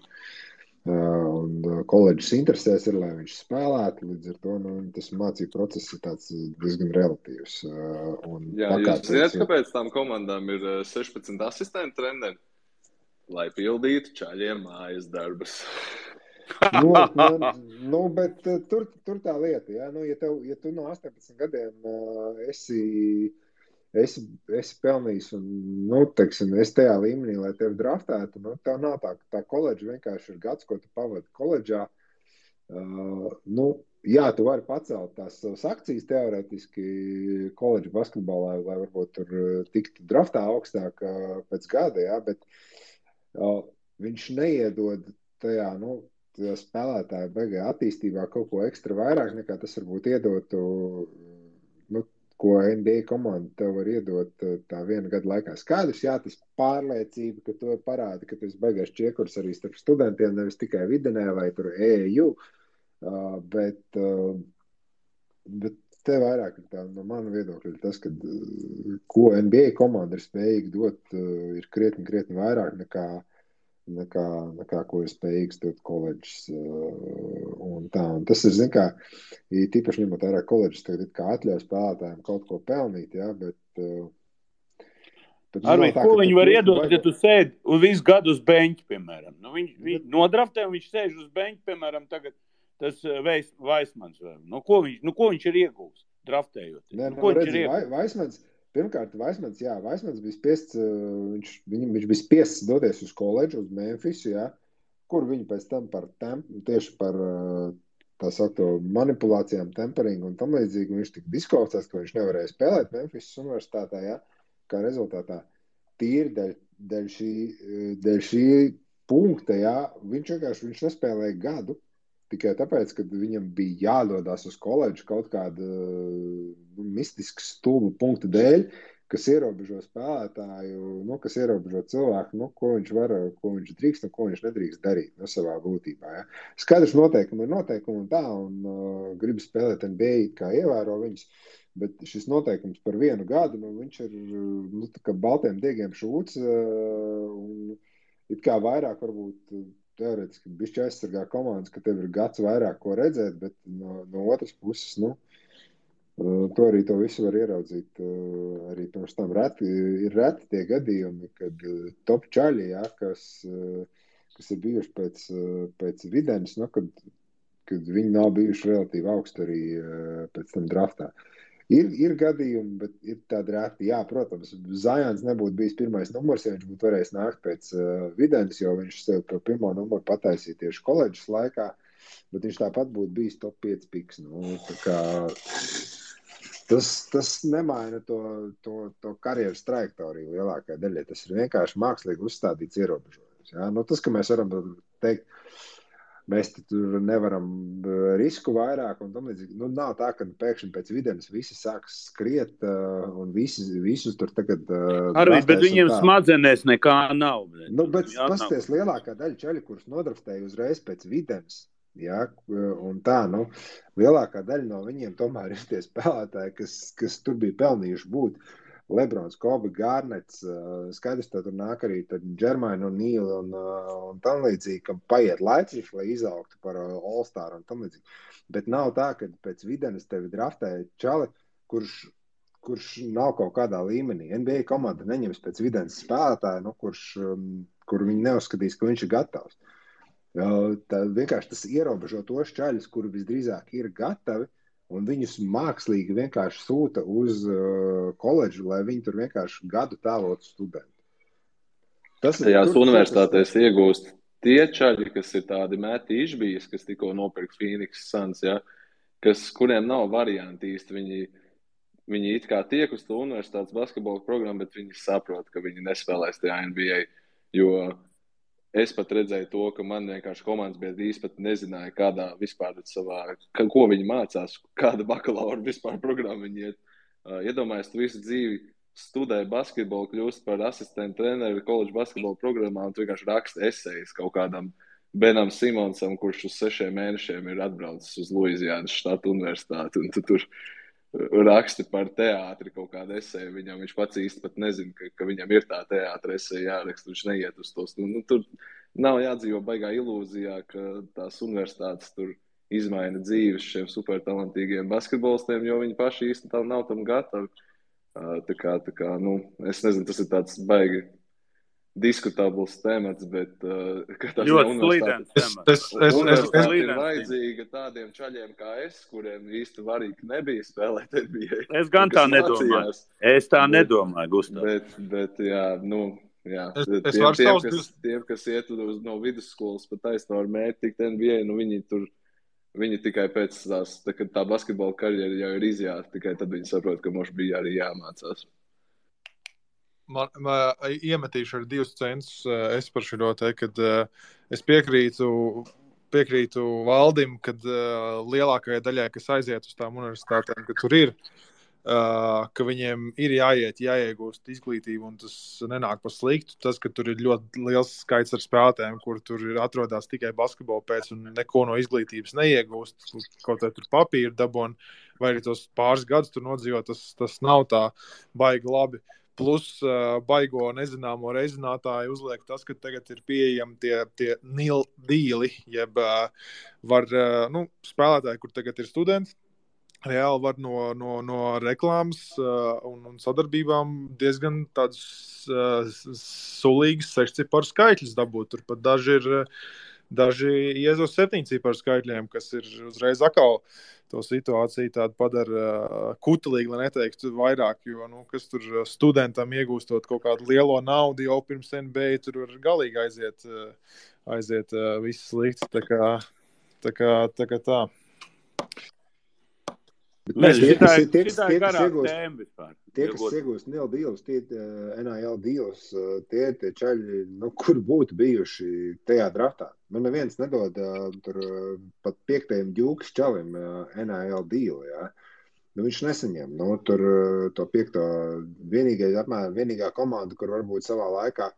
Un koledžas interesēs ir, lai viņš spēlētu, līdz ar to tas mācību process ir tāds diezgan relatīvs. Jūs zināt, kāpēc tām komandām ir 16 asistentu treneri? Lai pildītu čaļiem mājas darbus. Bet tur tā lieta, ja tu no 18 gadiem esi pelnījis un, teiksim, es tajā līmenī, lai tevi draftētu, tev nav tā koledža vienkārši ir gads, ko tu pavadi koledžā. Tu vari pacelt tās savas akcijas teorētiski koledža basketbolā, lai varbūt tur tiktu draftā augstāk pēc gada, bet viņš neiedod tajā, spēlētāju beigā attīstībā kaut ko ekstra vairāk, nekā tas varbūt iedotu, ko NBA komanda tev var iedot tā viena gada laikā. Skaidrs, tas pārliecība, ka to parāda, ka tas beigās čiekurs arī starp studentiem, nevis tikai videnē vai tur EEU, bet te vairāk ir tā, no mana viedokļa ir tas, ka ko NBA komanda ir spējīga dot, ir krietni vairāk nekā ko ir spējīgs dot koledžas un tā. Un tas ir, tīpaši ņemot vērā koledžas, tagad kā atļauj spēlētājiem kaut ko pelnīt, bet Arvīd, ko viņi var iedot, ja tu sēdi visu gadu uz beņķi, piemēram? Viņi nodraftē un viņš sēž uz beņķi, piemēram, tagad tas Vaismans. Ko viņš ir iegūs draftējot? Vaismans, pirmkārt, Vaismans bija spiests, viņš bija spiests doties uz koledžu, uz Memphisu, kur viņi pēc tam tieši par tā saukto manipulācijām, temperingu un tam līdzīgi, viņš tika diskvalificēts, ka viņš nevarēja spēlēt Memphisas universitātē, kā rezultātā tīri dēļ šī punkta, viņš nespēlēja gadu, tikai tāpēc, ka viņam bija jādodās uz koledžu kaut kāda mistiska stulba punkta dēļ, kas ierobežo spēlētāju, kas ierobežo cilvēku, ko viņš var, ko viņš drīkst un ko viņš nedrīkst darīt savā būtībā. Skaidrs noteikumi ir noteikumi un tā, un grib spēlēt NBA, kā ievēro viņus, bet šis noteikums par vienu gadu, viņš ir kā baltiem diegiem šūts, un it kā vairāk varbūt teorētiski bišķi aizsargā komandas, ka tev ir gads vairāk ko redzēt, bet no otras puses, To arī to visu var ieraudzīt arī pirms tam. Ir reti tie gadījumi, kad top čaļi, ja, kas ir bijuši pēc Videnes, nu, kad viņi nav bijuši relatīvi augsti arī pēc tam draftā. Ir gadījumi, bet ir tādi reti. Jā, protams, Zions nebūtu bijis pirmais numurs, ja viņš būtu varējis nākt pēc Videnes, jo viņš sev par pirmo numuru pataisīja tieši koledžas laikā, bet viņš tāpat būtu bijis top 5 piks. Nu, tā kā tas nemaina to karjeras trajektoriju lielākajai daļai. Tas ir vienkārši mākslīgi uzstādīts ierobežojums. Ja? Nu, tas, ka mēs varam teikt, mēs tur nevaram risku vairāk un tam līdzīgi. Nu, nav tā, ka pēkšņi pēc Videnes visi sāks skriet un visus tur tagad Arvīd, bet viņiem smadzenēs nekā nav. Nu, bet pasties lielākā daļa čaļi, kurus nodraftēja uzreiz pēc Videnes, ja, un tā, nu, lielākā daļa no viņiem tomēr ir tie spēlētāji, kas tur bija pelnījuši būt. Lebrons, Kobe, Garnets, skaidrs, tā tur nāk arī Džermaina un Nīla un tam līdzīgi, kam paiet laiciņš, lai izaugtu par All-Star un tam līdzīgi. Bet nav tā, ka pēc Videnes tevi draftēja čali, kurš nav kaut kādā līmenī. NBA komanda neņems pēc Videnes spēlētāju, nu, kur viņi neuzskatīs, ka viņš ir gatavs. Tā vienkārši tas ierobežo tos čaļus, kuri visdrīzāk ir gatavi, un viņus mākslīgi vienkārši sūta uz koledžu, lai viņi tur vienkārši gadu tēlotu studentu. Tajās universitātēs iegūst tie čaļi, kas ir tādi meti išbijas, kas tikko nopirka Phoenix Suns, ja, kuriem nav varianti īsti. Viņi it kā tiek uz to universitātes basketbola programmu, bet viņi saprot, ka viņi nespēlēs tajā NBA, jo es pat redzēju to, ka man vienkārši komandas biedri pat nezināja, kādā vispār ko viņi mācās, kāda bakalaura vispār programma viņi iet. Iedomājies, tu visu dzīvi studēji basketbolu, kļūst par asistentu treneri koledžu basketbola programmā un tu vienkārši raksti esejas kaut kādam Benam Simonsam, kurš uz 6 mēnešiem ir atbraucis uz Luizijānas štata universitāti, un tu tur raksti par teātri kaut kādu eseju. Viņš pats īsti pat nezina, ka viņam ir tā teātra eseja jāraksta, viņš neiet uz tos. Nu, tur nav jādzīvo baigā ilūzijā, ka tās universitātes tur izmaina dzīves šiem supertalantīgiem basketbolistiem, jo viņi paši īsti nav tam gatavi. Tā kā, nu, es nezinu, tas ir tāds baigi diskutabls temats, bet ļoti slīdens temats. Universitāte ir vajadzīga tādiem čaļiem kā es, kuriem īsti varīgi nebija spēlēt NBA. Es gan tā nedomāju. Es tā nedomāju, Gustav. Bet jā, nu, jā. Tiem, kas iet no vidusskolas pat taisno ar mērķi tikt NBA, nu viņi tikai pēc tā basketbola karjera jau ir izjāta, tikai tad viņi saprot, ka mums bija arī jāmācās. Man iemetīšu ar 2 centus es par šo te, kad es piekrītu Valdim, kad lielākajai daļai, kas aiziet uz tām universitātēm, ka tur ir, ka viņiem ir jāiegūst izglītību, un tas nenāk par sliktu. Tas, ka tur ir ļoti liels skaits ar spēlētājiem, kur tur atrodas tikai basketbolu pēc un neko no izglītības neiegūst, kaut kā tur papīru dabon, vai arī tos pāris gadus tur nodzīvot, tas nav tā baigi labi. Plus baigo nezināmo reizinātāju uzliek tas, ka tagad ir pieejami tie nil dīli, jeb var, spēlētāji, kur tagad ir studenti, reāli var no reklāmas un sadarbībām diezgan tādus sulīgas 6-ciparu skaitļus dabūt. Tur pat daži iez uz 7-ciparu skaitļiem, kas ir uzreiz atkal to situāciju tādu padara kutelīgi, lai neteiktu vairāk, jo, kas tur studentam iegūstot kaut kādu lielo naudu jau pirms NBA, tur var galīgi aiziet viss slikts, tā kā tā. Tie, kas iegūst NIL dīlus, NIL dīlus, tie čaļi, kur būtu bijuši tajā draftā. Neviens nedod tur pat 5. ģūkas čalim NIL dīlu, jā. Viņš nesaņem. Tur to 5. vienīgā komanda, kur varbūt savā laikā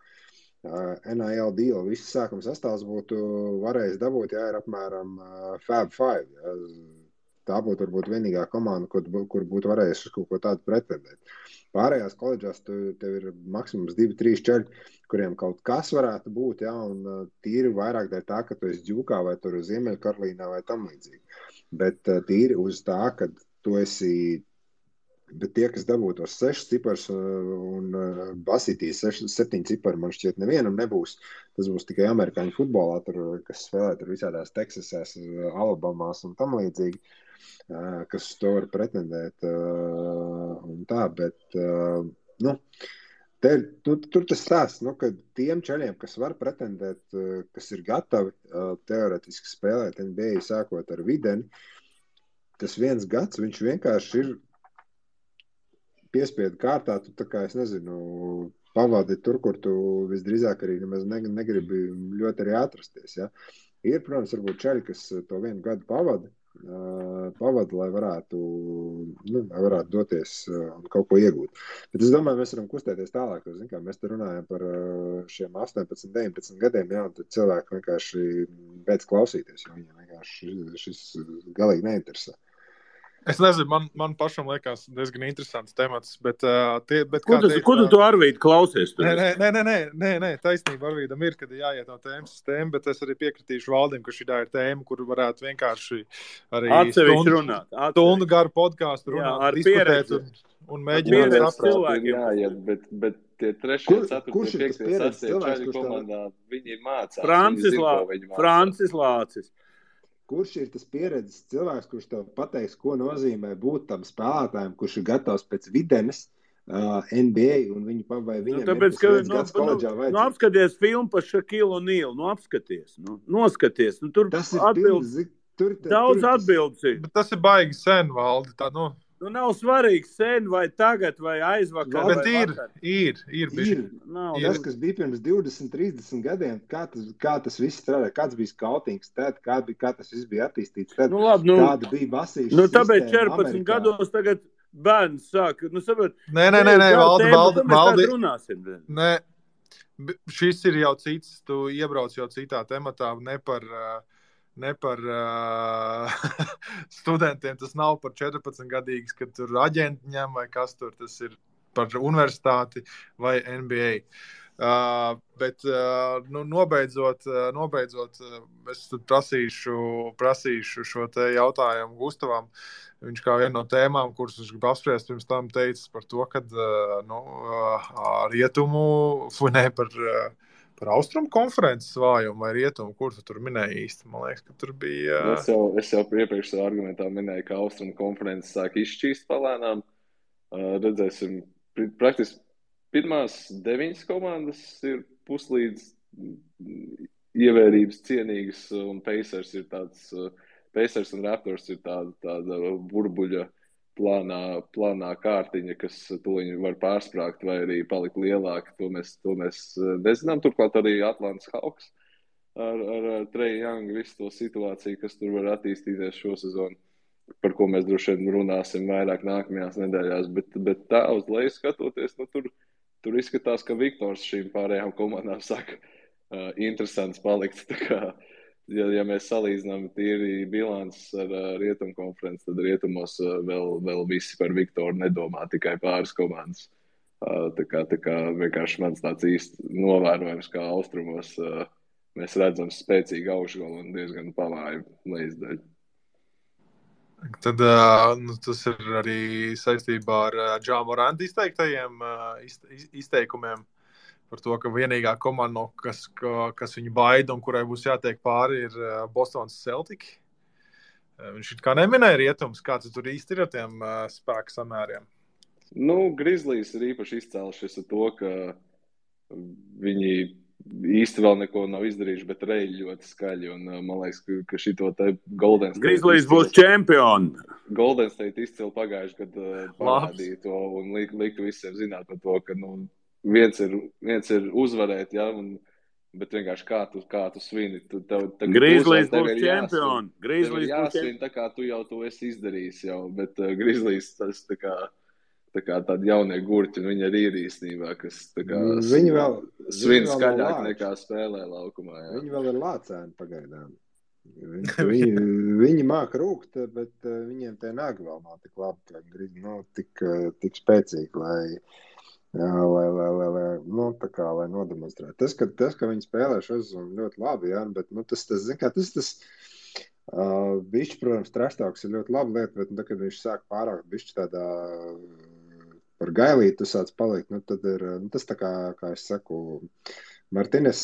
NIL dīlu viss sākuma sastāvs būtu varējis dabūt, jā, ir apmēram Fab 5, jā. Tā būtu varbūt vienīgā komanda, kur būtu varējusi kaut ko tādu pretendēt. Pārējās koledžās tev ir maksimums 2-3 čaļi, kuriem kaut kas varētu būt, jā, un tīri vairāk dēļ tā, ka tu esi ģūkā vai tur Ziemeļkarolīnā vai tam līdzīgi. Bet tīri uz tā, ka tu esi Bet tie, kas dabū tos 6 cipars un basītīs 7 cipari, man šķiet nevienam nebūs. Tas būs tikai amerikāņu futbolā, kas spēlē tur visādās Teksasās, Alabamās un tam līdzīgi, kas to var pretendēt un tā, bet, tur tas stāsts, ka tiem čaļiem, kas var pretendēt, kas ir gatavi teoretiski spēlēt NBA sākot ar Videni, tas 1 gads, viņš vienkārši ir piespiedu kārtā, tu tā kā, es nezinu, pavadi tur, kur tu visdrīzāk arī nemaz negribi ļoti arī atrasties, ja. Ir, protams, varbūt čaļi, kas to 1 gadu pavada, lai varētu doties un kaut ko iegūt. Bet es domāju, mēs varam kustēties tālāk. Mēs te runājam par šiem 18, 19 gadiem, jā, un tad cilvēki vienkārši beidz klausīties, jo viņiem vienkārši šis galīgi neinteresē. Es nezinu, man pašam liekas diezgan interesants temats, bet Ko tu Arvīd klausies? Nē, taisnība Arvīdam ir, kad jāiet no tēmas uz tēmu, bet es arī piekritīšu Valdim, ka šī ir tēma, kur varētu vienkārši arī stundu garu podkāstu runāt, diskutēt un mēģināt saprast. Jā, bet tie 3, 4, 5, 6 čaļi komandā, viņi mācās. Francis Lācis. Kurš ir tas pieredzes cilvēks, kurš tev pateiks, ko nozīmē būt tam spēlētājiem, kurš ir gatavs pēc Videnes NBA un viņam tāpēc, ir tas gads koledžā vajadzēs? Apskaties filmu par Shaquille O'Neal, noskaties. Tur tas ir atbildes. Daudz atbildes ir. Bet tas ir baigi sen, Valdi, tā, nav svarīgi sen vai tagad vai aizvakar. Bet ir. Tas, kas bija pirms 20, 30 gadiem, kā tas viss strādā, kāds bija skautings tad, kā tas viss bija attīstīts tad, kāda bija basīša sistēma tāpēc 14 Amerikā. Gados tagad bērns sāk, saprot. Nē, Valdi. Runāsim. Nē, šis ir jau cits, tu iebrauc jau citā tematā, ne par studentiem, tas nav par 14-gadīgs, kad tur aģenti ņem vai kas tur, tas ir par universitāti vai NBA. Bet nobeidzot, es prasīšu šo te jautājumu Gustavam. Viņš kā viena no tēmām, kuras viņš grib apspriest, pirms tam teicis par to, kad par austrumu konferences vājumu vai rietumu, kur tu tur minēji īsti? Man liekas, ka tur bija... Es jau iepriekš savā argumentā minēju, ka austrumu konferences sāk izšķīst palēnām. Redzēsim, praktiski pirmās 9 komandas ir puslīdz ievērības cienīgas, un Pacers un Raptors ir tāda burbuļa plānā kārtiņa, kas tuliņi var pārsprāgt vai arī palikt lielāka. To mēs nezinām. Turklāt arī Atlantas Hawks ar Trae Young visu to situāciju, kas tur var attīstīties šo sezonu, par ko mēs droši vien runāsim vairāk nākamajās nedēļās. Bet tā uz leju skatoties, tur izskatās, ka Viktors šīm pārējām komandām saka interesants palikt. Tā kā Ja mēs salīdzinām tīri bilants ar rietumu konferenci, tad rietumos vēl visi par Viktoru nedomā, tikai pāris komandas. Tā kā vienkārši mans tāds īsti novērojums, kā austrumos mēs redzam spēcīgu augšgalu un diezgan pavāju lejasdaļu. Tad tas ir arī saistībā ar Ja Moranta izteikumiem. Par to, ka vienīgā komanda, kas viņu baida un kurai būs jātiek pāri, ir Bostonas Celtic. Viņš kā neminēja rietums, kāds tur īsti ir ar tiem spēku samēriem? Grizzlies ir īpaši izcēlušies ar to, ka viņi īsti vēl neko nav izdarījuši, bet reļi ļoti skaļi. Un man liekas, ka šito te Golden State... Grizzlies būs čempioni. Golden State izcili pagājuši, kad parādīja to un liktu visiem zināt par to, ka, viens ir uzvarēt, ja, bet vienkārši kā tu svini. Grizzlies būs čempioni. Grizzlies jāsvin, tā kā tu jau to esi izdarījis jau, bet Grizzlies tas tā kā tādi jaunie gurķi, viņi arī ir īstenībā, kas tā kā svin skaļāk nekā spēlē laukumā. Jā. Viņi vēl ir lācēni pagaidām. Viņi māk rūkt, bet viņiem tie nagi vēl nav tik labi, tik spēcīgi, lai nodemonstrētu. Tas, ka viņi spēlē šo sezonu ļoti labi, jā, bet tas Bišķi, protams, trashtalks ir ļoti laba lieta, bet, kad viņš sāk pārāk bišķi tādā par gailīti, tu sāc palikt, tad ir, tas tā kā es saku, Martines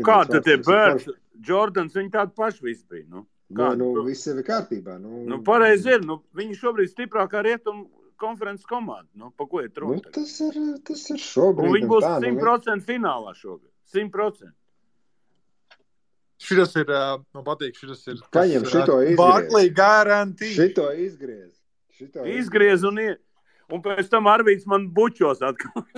kā tad tie Birds, Jordans, viņi tādi paši visi bija, viss jau ir kārtībā. Pareizi ir, viņi šobrīd stiprākā rietumu konferences komanda, pa ko iet runa? Tas ir šobrīd. Un viņi būs 100% finālā šobrīd, 100%. Šitas ir, man patīk, šitas ir Paņem šito izgriez. Barkley guarantee. Šito izgriez. Izgriez un pēc tam Arvīts man bučos atkal.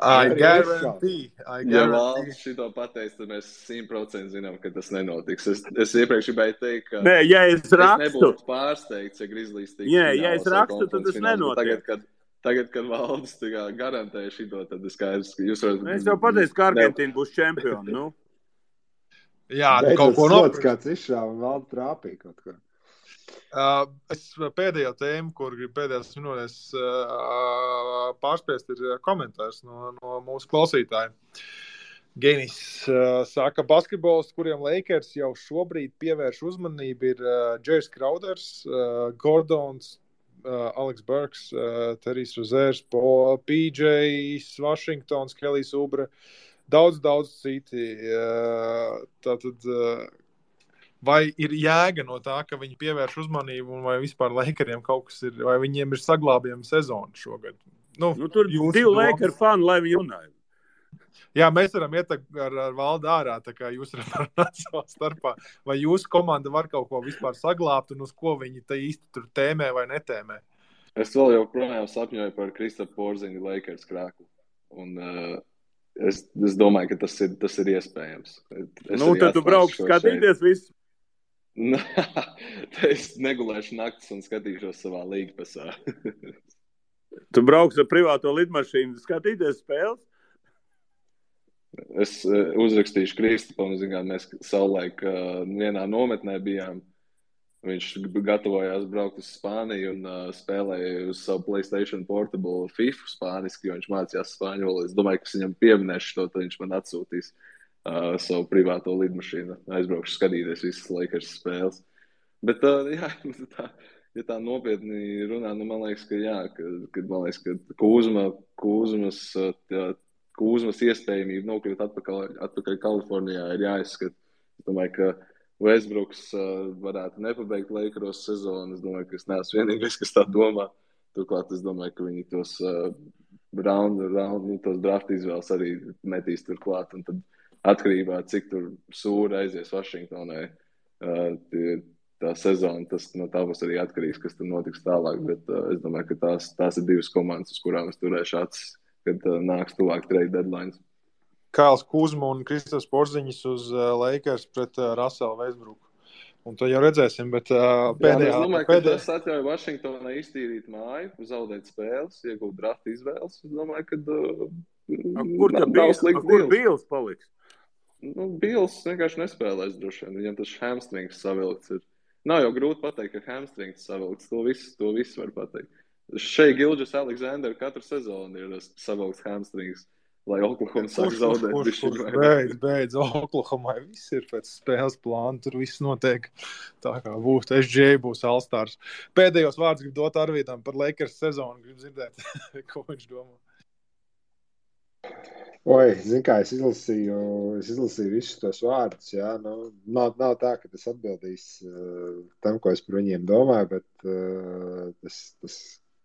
I guarantee. Ja valsts šito pateiks, tad mēs 100% zinām, ka tas nenotiks. Es iepriekš gribēju teikt, ka Nē, ja es rakstu, nebūtu pārsteigts, ja Grizzlies tik ja es rakstu, tad tas nenotiek. Tagad, kad valsts garantēja šito, tad ir skaidrs, ka jūs varat... Es jau pateicu, ka Argentīna būs čempioni, Jā, kaut ko nopirkt. Kāds izšāva un valda trāpīja kaut ko. Es pēdējo tēmu, kur gribu pēdējās minūtēs pārspiest, ir komentārs no mūsu klausītājiem. Genis saka, basketbols, kuriem Lakers jau šobrīd pievērš uzmanību, ir Jairus Crowders, Gordons, Alex Burks, Terijs Rozērs, PJs, Washingtons, Kelijs Oubre, daudz citi. Tātad, vai ir jēga no tā, ka viņi pievērš uzmanību, un vai vispār Lakeriem kaut kas ir, vai viņiem ir saglābjama sezona šogad? Tur divi Laker fani, lai viņi runāja. Jā, mēs varam iet ar valdu ārā, tā kā jūs varat parunāt savā starpā. Vai jūsu komanda var kaut ko vispār saglābt, un uz ko viņi te īsti tur tēmē vai netēmē? Es vēl joprojām sapņoju par Kristapu Porziņu Lakers krāklu. Un es domāju, ka tas ir iespējams. Tad tu brauks skatīties visu? Es negulēšu naktis un skatīšos savā līgpasā. Tu brauks ar privāto lidmašīnu skatīties spēles? Es uzrakstīšu Kristapam, mēs savulaik vienā nometnē bijām. Viņš gatavojās braukt uz Spāniju un spēlēja uz savu PlayStation Portable FIFA spāniski, jo viņš mācījās spāņu valodu. Es domāju, ka viņš pieminēšu to, tad viņš man atsūtīs savu privāto lidmašīnu. Aizbraukšu skatīties visas Lakers spēles. Bet, ja tā nopietni runā, man liekas, ka Kūzmas iespējamība nokļūt atpakaļ Kalifornijā ir jāizskata. Es domāju, ka Westbrooks varētu nepabeigt Lakeros sezonu. Es domāju, ka es neesmu vienīgais, kas tā domā. Turklāt es domāju, ka viņi tos tos draft izvēles arī metīs turklāt. Un tad atkarībā, cik tur sūri aizies Vašingtonai tā sezona, tas no tā būs arī atkarīgs, kas tur notiks tālāk. Bet es domāju, ka tās ir divas komandas, uz kurām es turēšu acis, kad nāks tuvāk trade deadlines. Kāls Kuzma un Kristaps Porziņš uz Lakers pret Russellu Westbrooku. Un to jau redzēsim, bet pēdējā... Es domāju, ka tas atļauj Vašingtonai iztīrīt māju, zaudēt spēles, iegūt draft izvēles. Es domāju, ka kur Bīls paliks? Bīls vienkārši nespēlēs droši vien. Viņam tas hamstrings savilkts ir. Nav jau grūti pateikt, ka hamstrings savilkts. To visu var pateikt. Šeit Gilgeous Alexander katru sezonu ir savilkts hamstrings, lai Oklahoma sāk zaudēt. Beidz, Oklahomai viss ir pēc spēles plāna, tur viss notiek tā kā būs. SJ būs All-Stars. Pēdējos vārdus gribu dot Arvītam par Lakers sezonu, gribu dzirdēt, ko viņš domā. Zini kā, es izlasīju visus tos vārdus, jā, nav tā, ka tas atbildīs tam, ko es par viņiem domāju, bet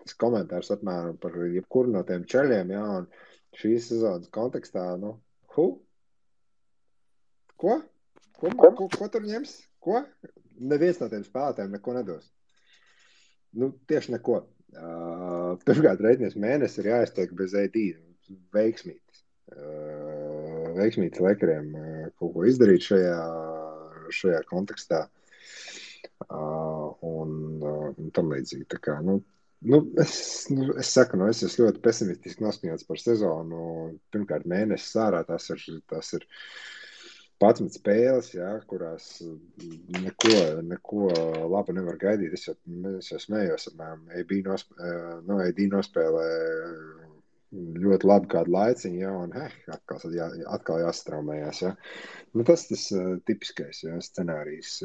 tas komentārs apmēram par jebkuru no tiem čeļiem, jā, un šīs sezonas kontekstā, Ko tur ņems? Ko? Neviens no tiem spēlētājiem neko nedos. Tieši neko. Pirmkārt, reiķinies mēnesi ir jāiztiek bez AD. Veiksmītis Lakeriem kaut ko izdarīt šajā kontekstā. Un tam līdzīgi. Tā kā, es saku, es esmu ļoti pesimistiski noskaņots par sezonu. Pirmkārt, mēnesis ārā tas ir 11 spēles, jā, kurās neko labu nevar gaidīt. Es jau smējos, AD nospēlē ļoti labi kādu laiciņu, jā, un atkal jāstraumējās, jā. Nu, tas tipiskais, jā, scenārijs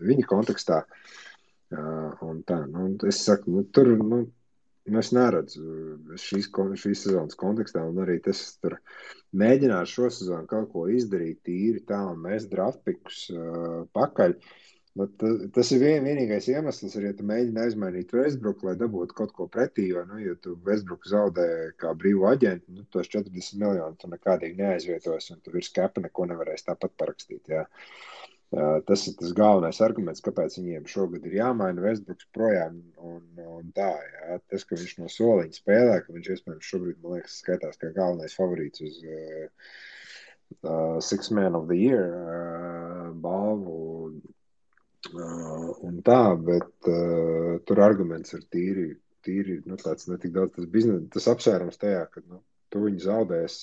viņa kontekstā. Un tā, nu, es saku, nu, tur, nu, es neredzu šīs sezonas kontekstā, un arī tas tur mēģināšu šo sezonu kaut ko izdarīt tīri tā, un mēs draftpikus pakaļ. Bet tas ir vienīgais iemesls, ja tu mēģini aizmainīt Westbrooku, lai dabūtu kaut ko pretī, jo, nu, ja tu Westbrooku zaudē kā brīvu aģentu, nu, tos 40 miljonu tu nekādīgi neaizvietos, un tu virs kapa neko nevarēsi tāpat parakstīt, jā. Tas ir tas galvenais arguments, kāpēc viņiem šogad ir jāmaina Westbrooks projām un tā, jā. Tas, ka viņš no soliņa spēlē, ka viņš iespējams šobrīd, man liekas, skaitās kā galvenais favorīts uz Six Man of the Year balvu, un tā, bet tur arguments ir tīri, nu, tāds netik daudz tas biznesa, tas apsvērums tajā, ka, nu, tu viņu zaudēs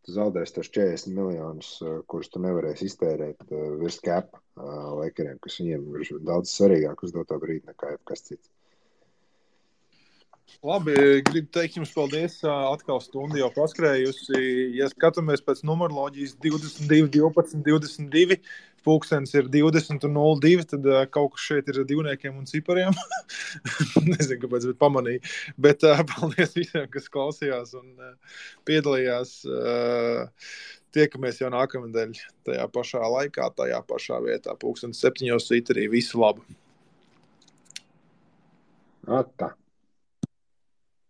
tos 40 miljonus, kurus tu nevarēsi iztērēt virs cap Lakeriem, kas viņiem ir daudz svarīgāk uz doto brīdi nekā jebkas cits. Labi, gribu teikt jums paldies. Atkal stundu jau paskrējusi. Ja skatāmies pēc numeroloģijas 22, 12, 22, pulkstens ir 20 un 02, tad kaut kas šeit ir divniekiem un cipariem. Nezinu, kāpēc, bet pamanīju. Bet paldies visiem, kas klausījās un piedalījās. Tiekamies jau nākamnedēļ tajā pašā laikā, tajā pašā vietā. Pulkstens 7 Twitterī. Visu labu! Tā.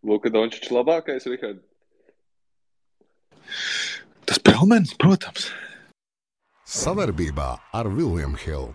Luka Dončičs labākais, Rihard? Tas Pelmens, protams. Savarbībā ar William Hill.